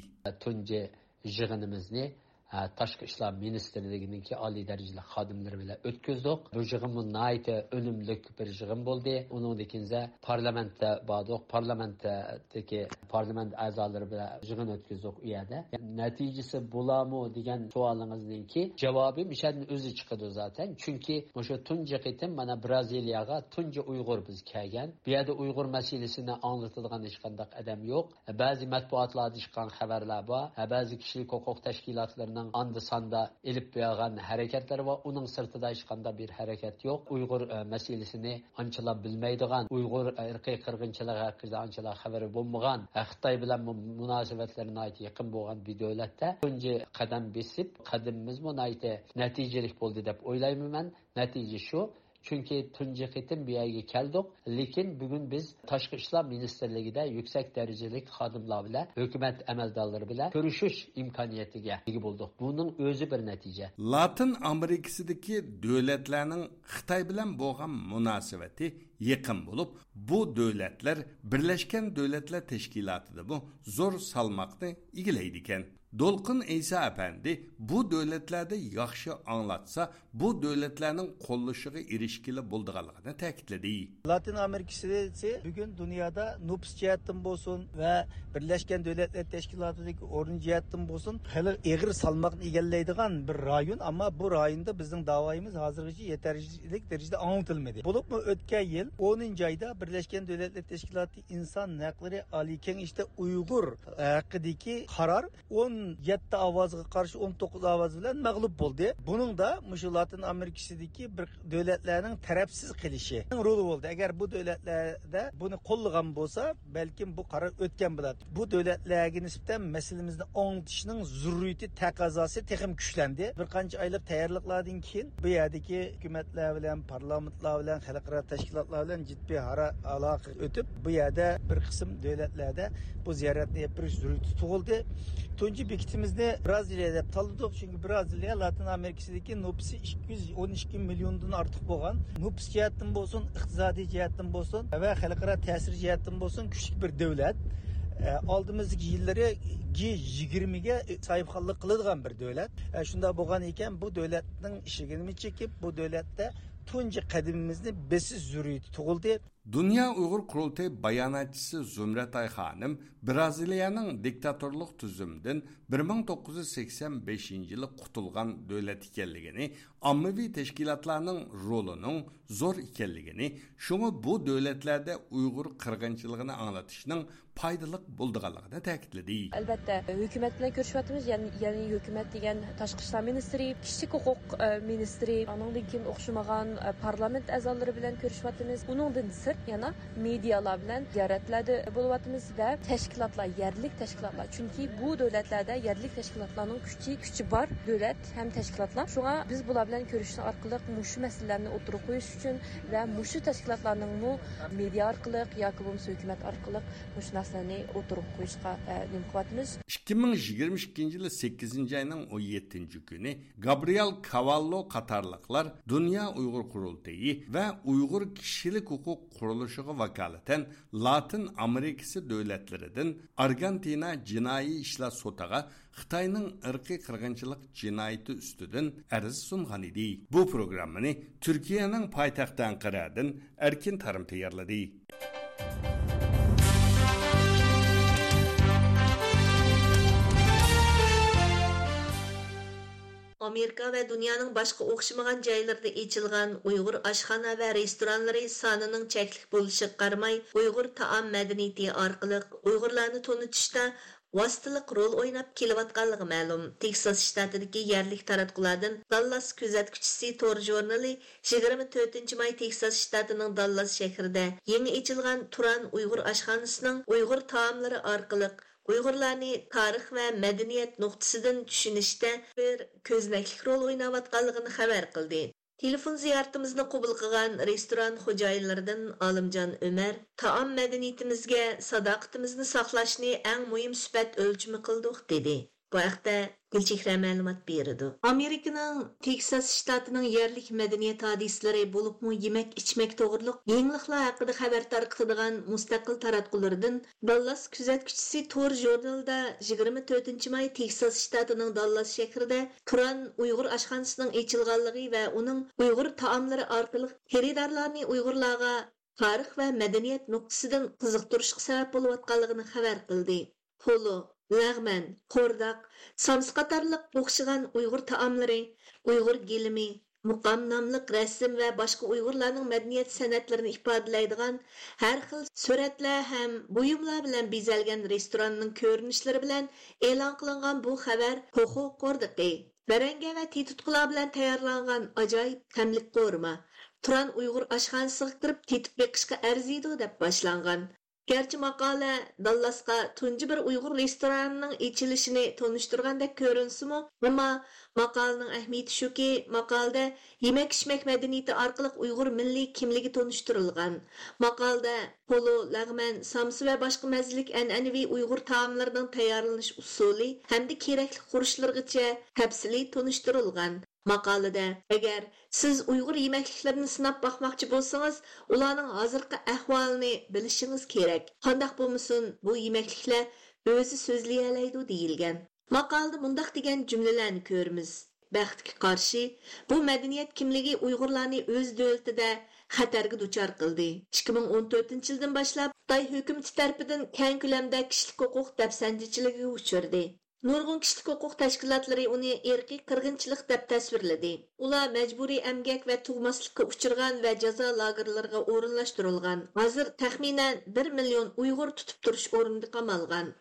تۇنجى يىغىنىمىزنى، ئە، تاشقى ئىشلار مىنىستىرلىكىنىڭكى ئالىي دەرىجىلىك خادىملىرى بىلەن ئۆتكۈزدۇق. بۇ يىغىنمۇ ناھايىتى ئۈنۈملۈك بىر يىغىن بولدى. ئۇنىڭدىن كېيىن پارلامېنتتا باردۇق. پارلامېنتتىكى پارلامېنت ئەزالىرى بىلەن يىغىن ئۆتكۈزدۇق ئۇ يەردە. نەتىجىسى بولامۇ دېگەن سوئالىڭىزنىڭكى جاۋابى مىشەدىن ئۆزى چىقىدۇ زاتەن. چۈنكى مۇشۇ تۇنجى قېتىم مانا برازىلىيەگە تۇنجى ئۇيغۇر بىز كەلگەن. بۇ يەردە ئۇيغۇر مەسىلىسىنى ئاڭلىتىدىغان ھېچقانداق ئادەم يوق. بەزى مەتبۇئاتلاردا چىققان خەۋەرلەر بار، بەزى كىشىلىك ھوقۇق تەشكىلاتلىرىنىڭ ئاندا-ساندا ئېلىپ بارغان ھەرىكەتلىرى بار. ئۇنىڭ سىرتىدا ھېچقانداق بىر ھەرىكەت يوق. ئۇيغۇر، ئە، مەسىلىسىنى ئانچىلا بىلمەيدىغان، ئۇيغۇر ئىرقىي قىرغىنچىلىقى ھەققىدە ئانچىلا خەۋىرى بولمىغان، خىتاي بىلەن مۇ-، مۇناسىۋەتلىرى ناھايىتى يېقىن بولغان بىر دۆلەتتە تۇنجى قەدەم بېسىپ، قەدىمىمىزمۇ ناھايىتى نەتىجىلىك بولدى دەپ ئويلايمەن مەن. نەتىجە شۇ، چۈنكى تۇنجى قېتىم بۇ يەرگە كەلدۇق، لېكىن بۈگۈن بىز تاشقى ئىشلار مىنىستىرلىكىدە يۈكسەك دەرىجىلىك خادىملار بىلەن، ھۆكۈمەت ئەمەلدارلىرى بىلەن كۆرۈشۈش ئىمكانىيىتىگە ئىگە بولدۇق. بۇنىڭ ئۆزى بىر نەتىجە. لاتىن ئامېرىكىسىدىكى دۆلەتلەرنىڭ خىتاي بىلەن بولغان مۇناسىۋىتى يېقىن بولۇپ، بۇ دۆلەتلەر بىرلەشكەن دۆلەتلەر تەشكىلاتىدىمۇ زور سالماقنى ئىگىلەيدىكەن. دولقۇن ئەيسا ئەپەندى بۇ دۆلەتلەردە ياخشى ئاڭلاتسا، بۇ دۆلەتلەرنىڭ قوللىشىغا ئېرىشكىلى بولىدىغانلىقىنى تەكىتلىدى. لاتىن ئامېرىكىسى بۈگۈن دۇنيادا نوپۇس جەھەتتىن بولسۇن ۋە بىرلەشكەن دۆلەتلەر تەشكىلاتىدىكى ئورنى جەھەتتىن بولسۇن، خېلى ئېغىر سالماقنى ئىگىلەيدىغان بىر رايون. ئەمما بۇ رايوندا بىزنىڭ داۋايىمىز ھازىرغىچە يېتەرلىك دەرىجىدە ئاڭلىتىلمىدى. بولۇپمۇ ئۆتكەن يىل ئونىنچى ئايدا بىرلەشكەن دۆلەتلەر تەشكىلاتى ئىنسان ھەقلىرى ئالىي كېڭىشىدە ئۇيغۇر ھەققىدىكى قارار ئون يەتتە ئاۋازغا قارشى ئون توققۇز ئاۋاز بىلەن مەغلۇپ بولدى. بۇنىڭدا مۇشۇ لاتىن ئامېرىكىسىدىكى بىر دۆلەتلەرنىڭ تەرەپسىز قېلىشى رولى بولدى. ئەگەر بۇ دۆلەتلەردە بۇنى قوللىغان بولسا، بەلكىم بۇ قارار ئۆتكەن بولاتتى. بۇ دۆلەتلەرگە نىسبەتەن مەسىلىمىزنى ئاڭلىتىشنىڭ زۆرۈرىيىتى، تەقەززاسى تېخىمۇ كۈچلەندى. بىر قانچە ئايلىق تەييارلىقلاردىن كېيىن بۇ يەردىكى ھۆكۈمەتلەر بىلەن، پارلامېنتلار بىلەن، خەلقئارا تەشكىلاتلار بىلەن جىددىي ئارا-، ئالاقە ئۆتۈپ، بۇ يەردە بىر قىسىم دۆلەتلەردە بۇ زىيارەتنى ئېلىپ بېرىش زۆرۈرىيىتى تۇغۇلدى. تۇنجى بېكىتىمىزنى برازىلىيە دەپ تاللىدۇق، چۈنكى برازىلىيە لاتىن ئامېرىكىسىدىكى نوپۇسى ئىككى يۈز ئون ئىككى مىليوندىن ئارتۇق بولغان، نوپۇس جەھەتتىن بولسۇن، ئىقتىسادىي جەھەتتىن بولسۇن ۋە خەلقئارا تەسىر جەھەتتىن بولسۇن كۈچلۈك بىر دۆلەت. ئە، ئالدىمىزدىكى يىللىرى جى يىگىرمىگە ساھىبخانلىق قىلىدىغان بىر دۆلەت. ئە، شۇنداق بولغان ئىكەن، بۇ دۆلەتنىڭ ئىشىكىنى چېكىپ، بۇ دۆلەتتە تۇنجى قەدىمىمىزنى بېسىش زۆرۈرىيىتى تۇغۇلدى. دۇنيا ئۇيغۇر قۇرۇلتىيى باياناتچىسى زۇمرەتئاي خانىم برازىلىيەنىڭ دىكتاتورلۇق تۈزۈمىدىن بىر مىڭ توققۇز يۈز سەكسەن بەشىنچى يىلى قۇتۇلغان دۆلەت ئىكەنلىكىنى، ئاممىۋى تەشكىلاتلارنىڭ رولىنىڭ زور ئىكەنلىكىنى، شۇڭا بۇ دۆلەتلەردە ئۇيغۇر قىرغىنچىلىقىنى ئاڭلىتىشنىڭ پايدىلىق بولىدىغانلىقىنى تەكىتلىدى. ئەلۋەتتە، ھۆكۈمەت بىلەن كۆرۈشۈۋاتىمىز، يەنى، يەنى ھۆكۈمەت دېگەن تاشقى ئىشلار مىنىستىرى، كىشىلىك ھوقۇق، ئە، مىنىستىرى، ئانىڭدىن كېيىن ئوخشىمىغان، ئە، پارلامېنت ئەزالىرى بىلەن كۆرۈشۈۋاتىمىز. ئۇنىڭدىن سىرت، يەنە مېدىيالار بىلەن زىيارەتلەردە بولۇۋاتىمىز ۋە تەشكىلاتلار، يەرلىك تەشكىلاتلار، چۈنكى بۇ دۆلەتلەردە يەرلىك تەشكىلاتلارنىڭ كۈچى، كۈچى بار دۆلەت ھەم تەشكىلاتلار. شۇڭا بىز بۇلار بىلەن كۆرۈشۈش ئارقىلىق مۇشۇ مەسىلىلەرنى ئوتتۇرىغا قويۇش ئۈچۈن ۋە مۇشۇ تەشكىلاتلارنىڭمۇ مېدىيا ئارقىلىق ياكى بولمىسا ھۆكۈمەت ئارقىلىق مۇشۇ نەرسىلەرنى ئوتتۇرىغا قويۇشقا، ئە، نېمە قىلىۋاتىمىز. ئىككى مىڭ يىگىرمە ئىككىنچى يىلى سەككىزىنچى ئاينىڭ ئون يەتتىنچى كۈنى گابرىيېل كاۋاللو قاتارلىقلار دۇنيا ئۇيغۇر قۇرۇلتىيى ۋە ئۇيغۇر كىشىلىك ھوقۇق قۇرۇلۇشىغا ۋاكالىتەن لاتىن ئامېرىكىسى دۆلەتلىرىدىن ئارگېنتىنا جىنايى ئىشلار سوتىغا خىتاينىڭ ئىرقىي قىرغىنچىلىق جىنايىتى ئۈستىدىن ئەرز سۇنغان ئىدى. بۇ پروگراممىنى تۈركىيەنىڭ پايتەختى ئەنقەرەدىن ئەركىن تارىم تەييارلىدى. ئامېرىكا ۋە دۇنيانىڭ باشقا ئوخشىمىغان جايلىرىدا ئېچىلغان ئۇيغۇر ئاشخانا ۋە رېستورانلىرى سانىنىڭ چەكلىك بولۇشىغا قارىماي، ئۇيغۇر تائام مەدەنىيىتى ئارقىلىق ئۇيغۇرلارنى تونۇتۇشتا ۋاسىتىلىق رول ئويناپ كېلىۋاتقانلىقى مەلۇم. تېكساس شتاتىدىكى يەرلىك تاراتقۇلاردىن داللاس كۆزەتكۈچىسى تور ژۇرنىلى يىگىرمە تۆتىنچى ماي تېكساس شتاتىنىڭ داللاس شەھىرىدە يېڭى ئېچىلغان تۇران ئۇيغۇر ئاشخانىسىنىڭ ئۇيغۇر تائاملىرى ئارقىلىق ئۇيغۇرلارنى تارىخ ۋە مەدەنىيەت نۇقتىسىدىن چۈشىنىشتە بىر كۆزنەكلىك رول ئويناۋاتقانلىقىنى خەۋەر قىلدى. تېلېفون زىيارىتىمىزنى قوبۇل قىلغان رېستوران خوجايىنلىرىدىن ئالىمجان ئۆمەر، تائام مەدەنىيىتىمىزگە ساداقىتىمىزنى ساقلاشنى ئەڭ مۇھىم سۈپەت ئۆلچىمى قىلدۇق، دېدى. بۇ ھەقتە گۈلچېھرە مەلۇمات بېرىدۇ. ئامېرىكىنىڭ تېكساس شتاتىنىڭ يەرلىك مەدەنىيەت ھادىسىلىرى، بولۇپمۇ يېمەك-ئىچمەك توغرۇلۇق يېڭىلىقلار ھەققىدە خەۋەر تارقىتىدىغان مۇستەقىل تاراتقۇلىرىدىن داللاس كۆزەتكۈچىسى تور ژۇرنىلىدا يىگىرمە تۆتىنچى ماي تېكساس شتاتىنىڭ داللاس شەھىرىدە تۇران ئۇيغۇر ئاشخانىسىنىڭ ئېچىلغانلىقى ۋە ئۇنىڭ ئۇيغۇر تائاملىرى ئارقىلىق خېرىدارلارنى ئۇيغۇرلارغا تارىخ ۋە مەدەنىيەت نۇقتىسىدىن قىزىقتۇرۇشقا سەۋەب بولۇۋاتقانلىقىنى خەۋەر قىلدى. پولۇ، لەغمەن، قورداق، سامسا قاتارلىق ئوخشىغان ئۇيغۇر تائاملىرى، ئۇيغۇر گىلىمى، مۇقام ناملىق رەسىم ۋە باشقا ئۇيغۇرلارنىڭ مەدەنىيەت سەنئەتلىرىنى ئىپادىلەيدىغان ھەر خىل سۈرەتلەر ھەم بۇيۇملار بىلەن بېزەلگەن رېستوراننىڭ كۆرۈنۈشلىرى بىلەن ئېلان قىلىنغان بۇ خەۋەر پوخۇ قوردىقى، بەرەڭگە ۋە تېتىتقۇلار بىلەن تەييارلانغان ئاجايىپ تەملىك قورۇما، تۇران ئۇيغۇر ئاشخانىسىغا كىرىپ تېتىپ بېقىشقا ئەرزىيدۇ، دەپ باشلانغان. گەرچە ماقالە داللاسقا تۇنجى بىر ئۇيغۇر رېستورانىنىڭ ئېچىلىشىنى تونۇشتۇرغاندەك كۆرۈنسىمۇ، ئەمما ماقالىنىڭ ئەھمىيىتى شۇكى، ماقالىدە يېمەك-ئىچمەك مەدەنىيىتى ئارقىلىق ئۇيغۇر مىللىي كىملىكى تونۇشتۇرۇلغان. ماقالىدە پولۇ، لەغمەن، سامسا ۋە باشقا مەززىلىك ئەنئەنىۋى ئۇيغۇر تائاملىرىنىڭ تەييارلىنىش ئۇسۇلى ھەمدە كېرەكلىك خۇرۇچلىرىغىچە تەپسىلىي تونۇشتۇرۇلغان. ماقالىدە، ئەگەر سىز ئۇيغۇر يېمەكلىكلىرىنى سىناپ باقماقچى بولسىڭىز، ئۇلارنىڭ ھازىرقى ئەھۋالىنى بىلىشىڭىز كېرەك. قانداق بولمىسۇن، بۇ يېمەكلىكلەر ئۆزى سۆزلىيەلەيدۇ، دېيىلگەن. ماقالىدە مۇنداق دېگەن جۈملىلەرنى كۆرىمىز: بەختكە قارشى، بۇ مەدەنىيەت كىملىكى ئۇيغۇرلارنى ئۆز دۆلىتىدە خەتەرگە دۇچار قىلدى. ئىككى مىڭ ئون تۆتىنچى يىلدىن باشلاپ خىتاي ھۆكۈمىتى تەرىپىدىن كەڭ كۆلەمدە كىشىلىك ھوقۇق دەپسەندىچىلىكىگە ئۇچرىدى. نۇرغۇن كىشىلىك ھوقۇق تەشكىلاتلىرى ئۇنى ئىرقىي قىرغىنچىلىق دەپ تەسۋىرلىدى. ئۇلار مەجبۇرىي ئەمگەك ۋە تۇغماسلىققا ئۇچرىغان ۋە جازا لاگېرلىرىغا ئورۇنلاشتۇرۇلغان. ھازىر تەخمىنەن بىر مىليون ئۇيغۇر تۇتۇپ تۇرۇش ئورنىدا قامالغان.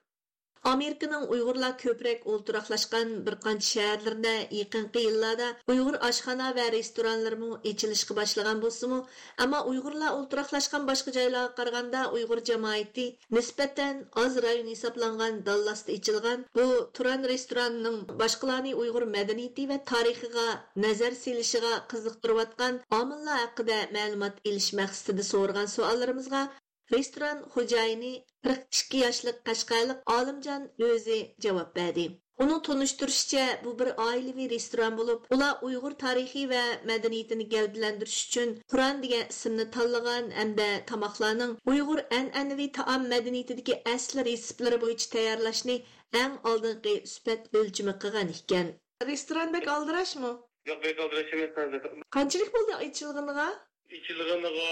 ئامېرىكىنىڭ ئۇيغۇرلار كۆپرەك ئولتۇراقلاشقان بىر قانچە شەھەرلىرىدە يېقىنقى يىللاردا ئۇيغۇر ئاشخانا ۋە رېستورانلىرىمۇ ئېچىلىشقا باشلىغان بولسىمۇ، ئەمما ئۇيغۇرلار ئولتۇراقلاشقان باشقا جايلارغا قارىغاندا ئۇيغۇر جامائىتى نىسبەتەن ئاز رايون ھېسابلانغان داللاستا ئېچىلغان بۇ تۇران رېستورانىنىڭ باشقىلارنى ئۇيغۇر مەدەنىيىتى ۋە تارىخىغا نەزەر سېلىشىغا قىزىقتۇرۇۋاتقان ئامىللار ھەققىدە مەلۇمات ئېلىش مەقسىتىدە سورىغان سوئاللىرىمىزغا رېستوران خوجايىنى، قىرىق ئىككى ياشلىق قەشقەرلىك ئالىمجان ئۆزى جاۋاب بەردى. ئۇنىڭ تونۇشتۇرۇشىچە، بۇ بىر ئائىلىۋى رېستوران بولۇپ، ئۇلار ئۇيغۇر تارىخى ۋە مەدەنىيىتىنى گەۋدىلەندۈرۈش ئۈچۈن تۇران دېگەن ئىسىمنى تاللىغان ھەمدە تاماقلارنىڭ ئۇيغۇر ئەنئەنىۋى تائام مەدەنىيىتىدىكى ئەسلى رېتسېپلىرى بويىچە تەييارلاشنى ئەڭ ئالدىنقى سۈپەت ئۆلچىمى قىلغان ئىكەن. رېستوران بەك ئالدىراشمۇ؟ ياق، بەك ئالدىراش ئەمەس ھازىر. قانچىلىك بولدى ئېچىلغىنىغا؟ ئېچىلغىنىغا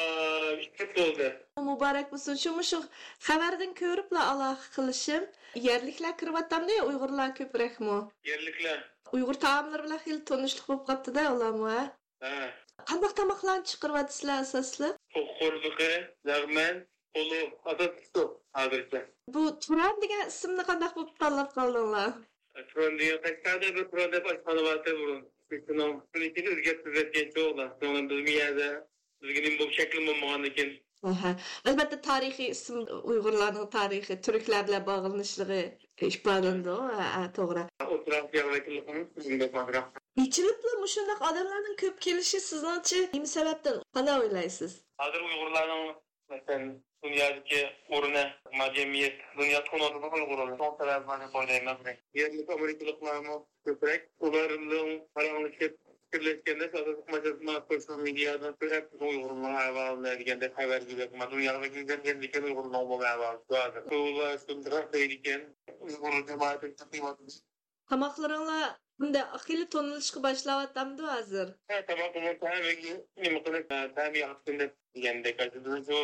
ئۈچ يىل بولدى. مۇبارەك بولسۇن. شۇ مۇشۇ خەۋەردىن كۆرۈپلا ئالاقە قىلىشىم. يەرلىكلەر كىرىۋاتامدۇ يا ئۇيغۇرلار كۆپرەكمۇ؟ يەرلىكلەر. ئۇيغۇر تائاملىرى بىلەن خېلى تونۇشلۇق بولۇپ قاپتۇ-دە ئۇلارمۇ، ھە؟ ھە. قانداق تاماقلارنى چىقىرىۋاتىسىلەر ئاساسلىق؟ توخۇ قوردىقى، لەغمەن، پولۇ، ئاساسلىقى شۇ ھازىرچە. بۇ تۇران دېگەن ئىسىمنى قانداق بولۇپ تاللاپ قالدىڭلار؟ تۇران دېگەن، قەشقەردە بىر تۇران دەپ ئاشخانا بارتى بۇرۇن. شۇنىڭ، شۇنىڭ ئىچىدە ئۆزگەرتىپ ئۆزگەرتكەنچۇ ئۇلار. شۇنىڭ بىلەن بىزمۇ يەردە بىزگە نېمە بولۇپ شەكلىمۇ بولمىغاندىكىن، ئەھە. ئەلۋەتتە، تارىخىي ئىسىم ئۇيغۇرلارنىڭ تارىخى، تۈركلەر بىلەن باغلىنىشلىقى ئىپادىلىنىدۇ. ھە، ھە، توغرا. ئوتتۇرا ئاسىيا ۋەكىللىكىنىڭ ئىسمىنى بەك ئازراق. ئېچىلىپلا مۇشۇنداق ئادەملەرنىڭ كۆپ كېلىشى سىزنىڭچە نېمە سەۋەبتىن؟ قانداق ئويلايسىز؟ ھازىر ئۇيغۇرلارنىڭ، مەسىلەن، دۇنيادىكى ئورنى، ما جەمئىيەت، دۇنيا تونۇۋاتىدۇ ئۇيغۇرلارنى. شۇنىڭ سەۋەبى بار دەپ ئويلايمەن. يەرلىك ئامېرىكىلىقلارمۇ كۆپرەك. ئۇلار بىلەن پاراڭلىشىپ، پىكىرلەشكەندە، ئاساسلىق مەسىلە سوشال مېدىيادىن كۆرۈپ، بىزنىڭ ئۇيغۇرلارنىڭ ئەھۋالىنى دېگەندەك خەۋەرگە بەك، ما دۇنياغا بەك ئىگىلەنگەندىكىن ئۇيغۇرنىڭ ئۇمۇمىي ئەھۋالى شۇ ھازىر. ئۇلار شۇنداق دەيدىكەن، ئۇيغۇر جامائىتى چىقىۋاتىدۇ. تاماقلىرىڭلار بۇنداق خېلى تونۇلۇشقا باشلاۋاتامدۇ ھازىر؟ ھە، تاماقنىڭ تەمى نېمە قىلىپ، تەمى ياخشى دەپ دېگەندەك، ئاشۇ بىزنىڭ شۇ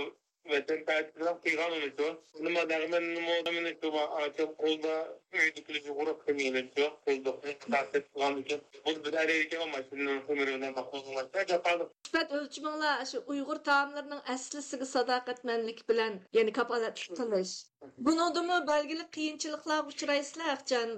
ۋەتەنپەرۋەرلىك قىلغان ئۇنى شۇ. نېمە دەغمەننىمۇ، مېنى شۇ ئاچام قولدا ئۆيدىكىلەر يۇغۇرۇق قىلمىغىنى شۇ. قولدا قىلغان ئىكەن. بۇ بىر ئەرەيدىكەن ماشىنىنىڭ خېمىرى بىلەن باقمىغان. جاپالىق. سۈپەت ئۆلچىمىڭلار شۇ ئۇيغۇر تائاملىرىنىڭ ئەسلىسىگە ساداقەتمەنلىك بىلەن، يەنى كاپالەتلىك قىلىش. بۇنىڭدىمۇ بەلگىلىك قىيىنچىلىقلارغا ئۇچرايسىلەر، ئەخچان؟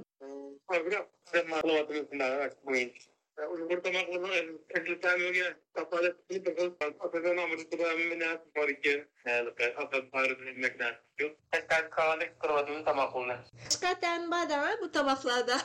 ئازراق قىلىۋاتىمىز شۇنداق بويىچە. ئۇيغۇر تاماقلىرىنىڭ ئەسلى تەمىگە كاپالەتلىك قىلىش ئاساسەن ئامېرىكىدا ھەممە نەرسە بار ئىكەن. ھېلىقى ئاساس بارىدىن يېمەك نەرسە يوق. قەشقەردىكى كاۋاندەك قىلىۋاتىمىز تاماقلىرىنى. قەشقەر تەمى بار-دە بۇ تاماقلاردا.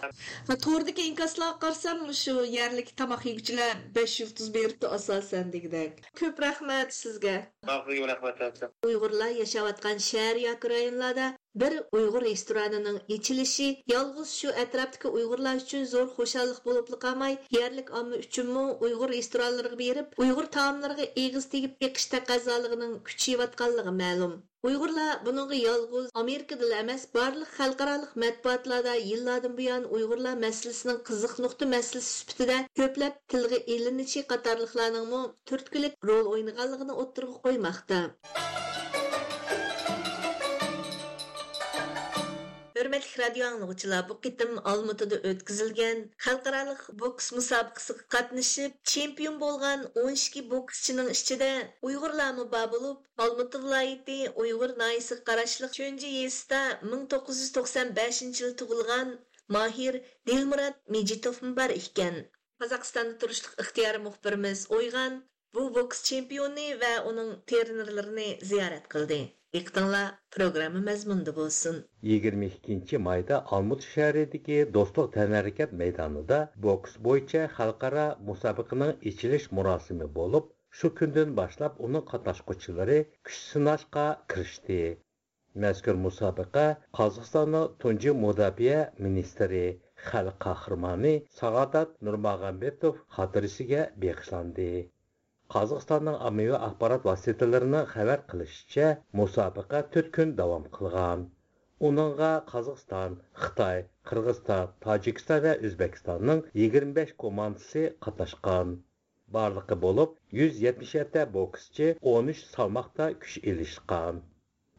توردىكى ئىنكاسلارغا قارىسام، مۇشۇ يەرلىك تاماق يېگۈچىلەر بەش يۇلتۇز بېرىپتۇ ئاساسەن دېگۈدەك. كۆپ رەھمەت سىزگە. سىزگە رەھمەت. ئۇيغۇرلار ياشاۋاتقان شەھەر ياكى رايونلاردا بىر ئۇيغۇر رېستورانىنىڭ ئېچىلىشى يالغۇز شۇ ئەتراپتىكى ئۇيغۇرلار ئۈچۈن زور خۇشاللىق بولۇپلا قالماي، يەرلىك ئامما ئۈچۈنمۇ ئۇيغۇر رېستورانلىرىغا بېرىپ، ئۇيغۇر تائاملىرىغا ئېغىز تېگىپ بېقىش تەقەززالىقىنىڭ كۈچىيىۋاتقانلىقى مەلۇم. ئۇيغۇرلار بۇنىڭغا يالغۇز ئامېرىكىدىلا ئەمەس، بارلىق خەلقئارالىق مەتبۇئاتلاردا يىللاردىن بۇيان ئۇيغۇرلار مەسىلىسىنىڭ قىزىق نۇقتا مەسىلىسى سۈپىتىدە كۆپلەپ تىلغا ئېلىنىشى قاتارلىقلارنىڭمۇ تۈرتكىلىك رول ئوينىغانلىقىنى ئوتتۇرىغا قويماقتا. ھۆرمەتلىك رادىيو ئاڭلىغۇچىلار، بۇ قېتىم ئالمۇتىدا ئۆتكۈزۈلگەن خەلقئارالىق بوكس مۇسابىقىسىگە قاتنىشىپ، چېمپىيون بولغان ئون ئىككى بوكسچىنىڭ ئىچىدە ئۇيغۇرلارمۇ بار بولۇپ، ئالمۇتا ۋىلايىتى ئۇيغۇر ناھىيىسىگە قاراشلىق چۆنجى يېزىسىدا مىڭ توققۇز يۈز توقسان بەشىنچى يىل تۇغۇلغان ماھىر دىلمۇرات مىجىتوفمۇ بار ئىكەن. قازاقىستاندا تۇرۇشلۇق ئىختىيارىي مۇخبىرىمىز ئويغان بۇ بوكس چېمپىيونى ۋە ئۇنىڭ ترېنېرلىرىنى زىيارەت قىلدى. دىققىتىڭلار پروگرامما مەزمۇنىدا بولسۇن. يىگىرمە ئىككىنچى مايدا ئالمۇتا شەھىرىدىكى دوستلۇق تەنھەرىكەت مەيدانىدا بوكس بويىچە خەلقئارا مۇسابىقىنىڭ ئېچىلىش مۇراسىمى بولۇپ، شۇ كۈندىن باشلاپ ئۇنىڭ قاتناشقۇچىلىرى كۈچ سىناشقا كىرىشتى. مەزكۇر مۇسابىقە قازاقىستاننىڭ تۇنجى مۇداپىئە مىنىستىرى، خەلق قەھرىمانى سائادات نۇرماغامبېتوف خاتىرىسىگە بېغىشلاندى. قازاقىستاننىڭ ئاممىۋى ئاخبارات ۋاسىتىلىرىنىڭ خەۋەر قىلىشىچە، مۇسابىقە تۆت كۈن داۋام قىلغان. ئۇنىڭغا قازاقىستان، خىتاي، قىرغىزىستان، تاجىكىستان ۋە ئۆزبېكىستاننىڭ يىگىرمە بەش كوماندىسى قاتناشقان. بارلىقى بولۇپ يۈز يەتمىش يەتتە بوكسچى، ئون ئۈچ سالماقتا كۈچ ئېلىشقان.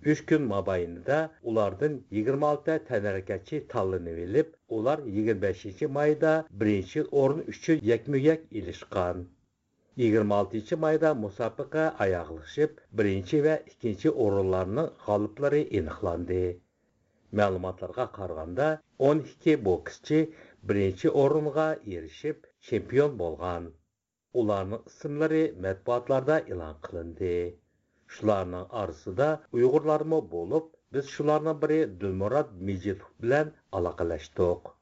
ئۈچ كۈن مابەينىدە ئۇلاردىن يىگىرمە ئالتە تەنھەرىكەتچى تاللىنىۋېلىپ، ئۇلار يىگىرمە بەشىنچى مايدا بىرىنچى ئورۇن ئۈچۈن يەكمۇ يەك ئېلىشقان. يىگىرمە ئالتىنچى مايدا مۇسابىقە ئاياغلىشىپ، بىرىنچى ۋە ئىككىنچى ئورۇنلارنىڭ غالىپلىرى ئېنىقلاندى. مەلۇماتلارغا قارىغاندا، ئون ئىككى بوكسچى بىرىنچى ئورۇنغا ئېرىشىپ، چېمپىيون بولغان. ئۇلارنىڭ ئىسىملىرى مەتبۇئاتلاردا ئېلان قىلىندى. شۇلارنىڭ ئارىسىدا ئۇيغۇرلارمۇ بولۇپ، بىز شۇلارنىڭ بىرى دىلمۇرات مىجىتوف بىلەن ئالاقىلەشتۇق.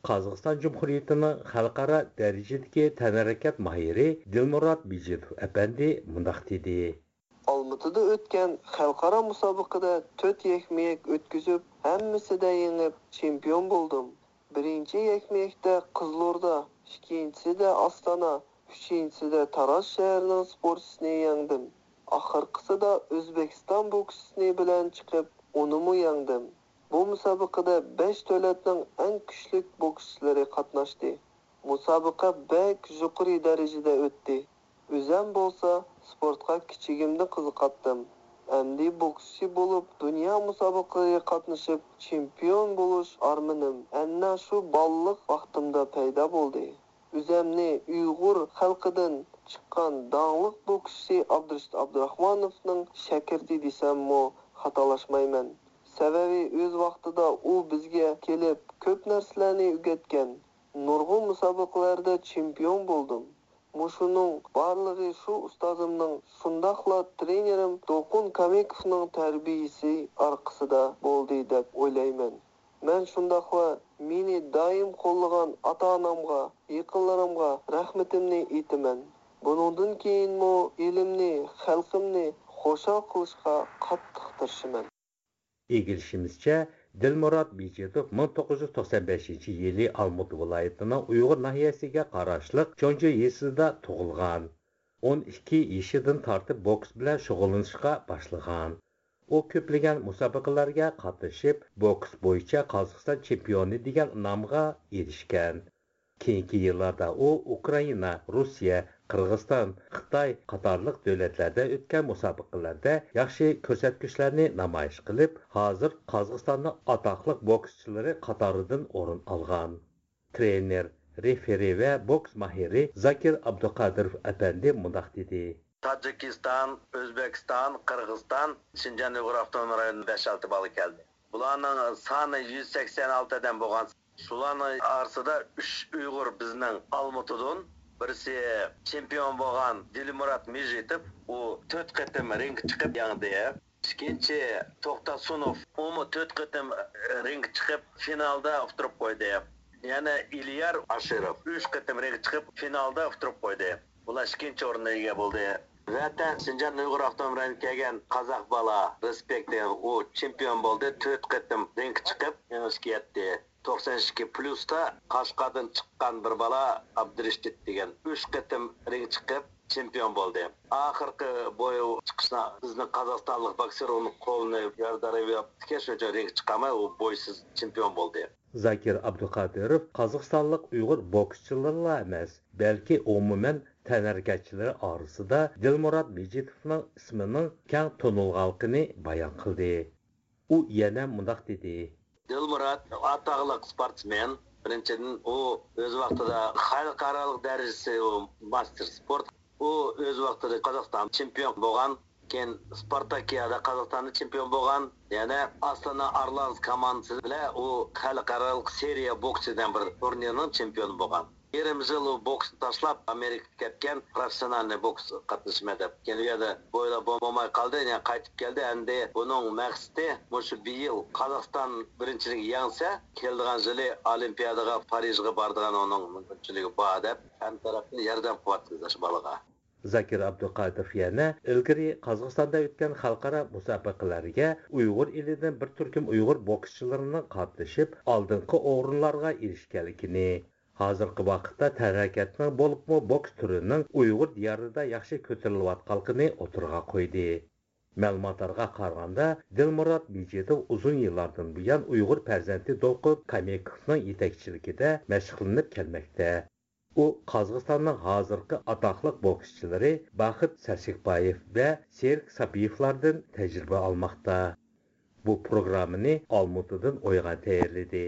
قازاقىستان جۇمھۇرىيىتىنىڭ خەلقئارا دەرىجىدىكى تەنھەرىكەت ماھىرى دىلمۇرات مىجىتوف ئەپەندى مۇنداق دېدى. ئالمۇتىدا ئۆتكەن خەلقئارا مۇسابىقىدە تۆت يەكمۇ يەك ئۆتكۈزۈپ، ھەممىسىدە يېڭىپ، چېمپىيون بولدۇم. بىرىنچى يەكمۇ يەكتە قىزىلوردا، ئىككىنچىسىدە ئاستانا، ئۈچىنچىسىدە تاراز شەھىرىنىڭ سپورتچىسىنى يەڭدىم. ئاخىرقىسىدا ئۆزبېكىستان بوكسچىسى بىلەن چىقىپ، ئۇنىمۇ يەڭدىم. بۇ مۇسابىقىدە بەش دۆلەتنىڭ ئەڭ كۈچلۈك بوكسچىلىرى قاتناشتى. مۇسابىقە بەك يۇقىرى دەرىجىدە ئۆتتى. ئۆزەم بولسا سپورتقا كىچىكىمدىن قىزىقاتتىم. ئەمدى بوكسچى بولۇپ، دۇنيا مۇسابىقىلىرىگە قاتنىشىپ، چېمپىيون بولۇش ئارمىنىم ئەنە شۇ بالىلىق ۋاقتىمدا پەيدا بولدى. ئۆزەمنى ئۇيغۇر خەلقىدىن چىققان داڭلىق بوكسچى ئابدۇرېشىت ئابدۇراخمانوفنىڭ شاگىرتى دېسەممۇ خاتالاشمايمەن. سەۋەبى ئۆز ۋاقتىدا ئۇ بىزگە كېلىپ كۆپ نەرسىلەرنى ئۆگەتكەن. نۇرغۇن مۇسابىقىلەردە چېمپىيون بولدۇم. مۇشۇنىڭ بارلىقى شۇ ئۇستازىمنىڭ، شۇنداقلا ترېنېرىم دولقۇن كامېكوفنىڭ تەربىيىسى ئارقىسىدا بولدى دەپ ئويلايمەن. مەن شۇنداقلا مېنى دائىم قوللىغان ئاتا-ئانامغا، يېقىنلىرىمغا رەھمىتىمنى ئېيتىمەن. بۇنىڭدىن كېيىنمۇ ئېلىمنى، خەلقىمنى خۇشال قىلىشقا قاتتىق تىرىشىمەن. ئىگىلىشىمىزچە، دىلمۇرات مىجىتوف مىڭ توققۇز يۈز توقسان بەشىنچى يىلى ئالمۇتا ۋىلايىتىنىڭ ئۇيغۇر ناھىيەسىگە قاراشلىق چونجۇ يېزىسىدا تۇغۇلغان. ئون ئىككى يېشىدىن تارتىپ بوكس بىلەن شۇغۇللىنىشقا باشلىغان. ئۇ كۆپلىگەن مۇسابىقىلەرگە قاتنىشىپ، بوكس بويىچە قازاقىستان چېمپىيونى دېگەن نامغا ئېرىشكەن. كېيىنكى يىللاردا ئۇ ئۇكرائىنا، روسىيە، قىرغىزىستان، خىتاي قاتارلىق دۆلەتلەردە ئۆتكەن مۇسابىقىلەردە ياخشى كۆرسەتكۈچلەرنى نامايىش قىلىپ، ھازىر قازاقىستاننىڭ ئاتاقلىق بوكسچىلىرى قاتارىدىن ئورۇن ئالغان. ترېنېر، رېفېرى ۋە بوكس ماھىرى زاكىر ئابدۇقادىروف ئەپەندى مۇنداق دېدى. تاجىكىستان، ئۆزبېكىستان، قىرغىزىستان، شىنجاڭ ئۇيغۇر ئاپتونوم رايونىدىن بەش-ئالتە بالا كەلدى. بۇلارنىڭ سانى يۈز سەكسەن ئالتە ئادەم بولغان. شۇلارنىڭ ئارىسىدا ئۈچ ئۇيغۇر بىزنىڭ ئالمۇتىدىن، بىرسى چېمپىيون بولغان دىلمۇرات مىجىتوف، ئۇ تۆت قېتىم رىڭگە چىقىپ يەڭدى. ئىككىنچى توختاسۇنوف، ئۇمۇ تۆت قېتىم رىڭگە چىقىپ فىنالدا ئۇتتۇرۇپ قويدى. يەنە ئىليار ئاشىروف ئۈچ قېتىم رىڭگە چىقىپ فىنالدا ئۇتتۇرۇپ قويدى. بۇلار ئىككىنچى ئورۇننى ئىگە بولدى. ۋەتەن شىنجاڭ ئۇيغۇر ئاپتونوم رايونىدىن كەلگەن قازاق بالا رېسپېكت دېگەن ئۇ چېمپىيون بولدى، تۆت قېتىم رىڭگە چىقىپ يېڭىشكە يەتتى. توقسان ئىككى پليۇستا قەشقەردىن چىققان بىر بالا ئابدۇرېشىت دېگەن ئۈچ قېتىم رىڭگە چىقىپ چېمپىيون بولدى. ئاخىرقى بوي چىقىشنا بىزنىڭ قازاقىستانلىق بوكسېر ئۇنىڭ قولىنى يارىدار ياپتىكەن، شۇنىڭ ئۈچۈن رىڭگە چىقالماي ئۇ بويسىز چېمپىيون بولدى. زاكىر ئابدۇقادىروف قازاقىستانلىق ئۇيغۇر بوكسچىلىرىلا ئەمەس، بەلكى ئومۇمەن تەنھەرىكەتچىلەر ئارىسىدا دىلمۇرات مىجىتوفنىڭ ئىسمىنىڭ كەڭ تونۇلغانلىقىنى بايان قىلدى. ئۇ يەنە مۇنداق دېدى. دىلمۇرات ئاتاقلىق سپورتسمېن. بىرىنچىدىن، ئۇ ئۆز ۋاقتىدا خەلقئارالىق دەرىجىسى ئۇ ماستېر سپورت. ئۇ ئۆز ۋاقتىدا قازاقىستان چېمپىيون بولغان. كېيىن سپارتاكىيادا قازاقىستاندا چېمپىيون بولغان. يەنە ئاستانا ئارلانز كوماندىسى بىلەن ئۇ خەلقئارالىق سېرىيە بوكسى دېگەن بىر تۇرنىرنىڭ چېمپىيونى بولغان. يېرىم يىل ئۇ بوكسنى تاشلاپ، ئامېرىكىغا كەتكەن، پروفېسسىونالنىي بوكس قاتنىشىمەن دەپ. كېيىن ئۇ يەردە بويلاپ بولماي قالدى، يەنە قايتىپ كەلدى. ئەمدى بۇنىڭ مەقسىتى مۇشۇ بىيىل قازاقىستان بىرىنچىلىكىگە يەڭسە، كېلىدىغان يىلى ئولىمپىيادىغا، پارىژغا بارىدىغان ئۇنىڭ مۇمكىنچىلىكى بار دەپ، ھەممە تەرەپتىن ياردەم قىلىۋاتىمىز ئاشۇ بالىغا. زاكىر ئابدۇقادىروف يەنە ئىلگىرى قازاقىستاندا ئۆتكەن خەلقئارا مۇسابىقىلەرگە ئۇيغۇر ئېلىدىن بىر تۈركۈم ئۇيغۇر بوكسچىلىرىنىڭ قاتنىشىپ، ئالدىنقى ئورۇنلارغا ئېرىشكەنلىكىنى، ھازىرقى ۋاقىتتا تەنھەرىكەتنىڭ، بولۇپمۇ بوكس تۈرىنىڭ ئۇيغۇر دىيارىدا ياخشى كۆتۈرۈلۈۋاتقانلىقىنى ئوتتۇرىغا قويدى. مەلۇماتلارغا قارىغاندا، دىلمۇرات مىجىتوف ئۇزۇن يىللاردىن بۇيان ئۇيغۇر پەرزەنتى دولقۇن كامېكوفنىڭ يېتەكچىلىكىدە مەشىقلىنىپ كەلمەكتە. ئۇ قازاقىستاننىڭ ھازىرقى ئاتاقلىق بوكسچىلىرى باخىت سەسىكبايېف ۋە سېرىك ساپىيېۋلاردىن تەجرىبە ئالماقتا. بۇ پروگراممىنى ئالمۇتىدىن ئويغان تەييارلىدى.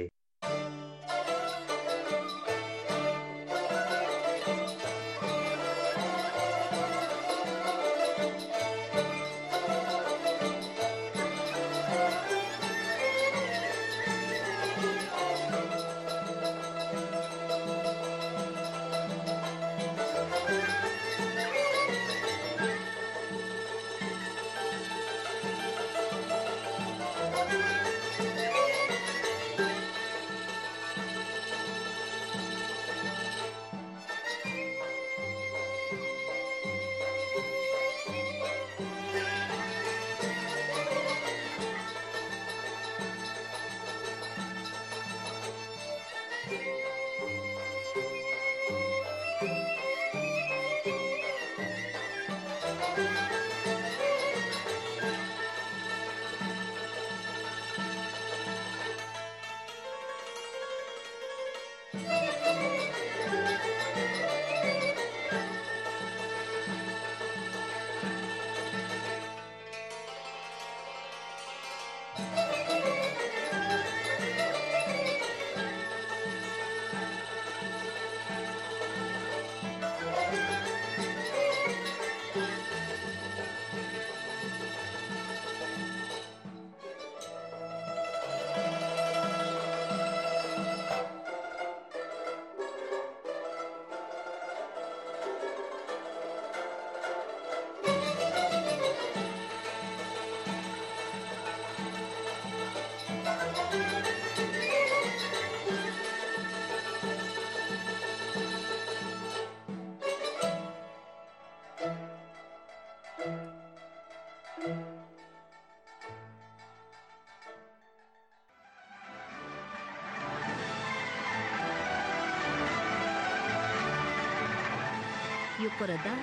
يۇقىرىدا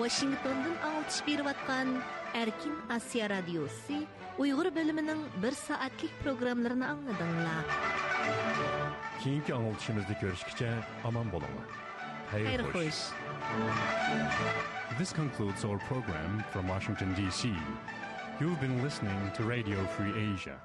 ۋاشىنگتوندىن ئاڭلىتىش بېرىۋاتقان ئەركىن ئاسىيا رادىيوسى ئۇيغۇر بۆلۈمىنىڭ بىر سائەتلىك پروگراممىلىرىنى ئاڭلىدىڭلار. كېيىنكى ئاڭلىتىشىمىزدا كۆرۈشكىچە ئامان بولۇڭلار. خەير خوش. This concludes our program from Washington, D C. You've been listening to Radio Free Asia.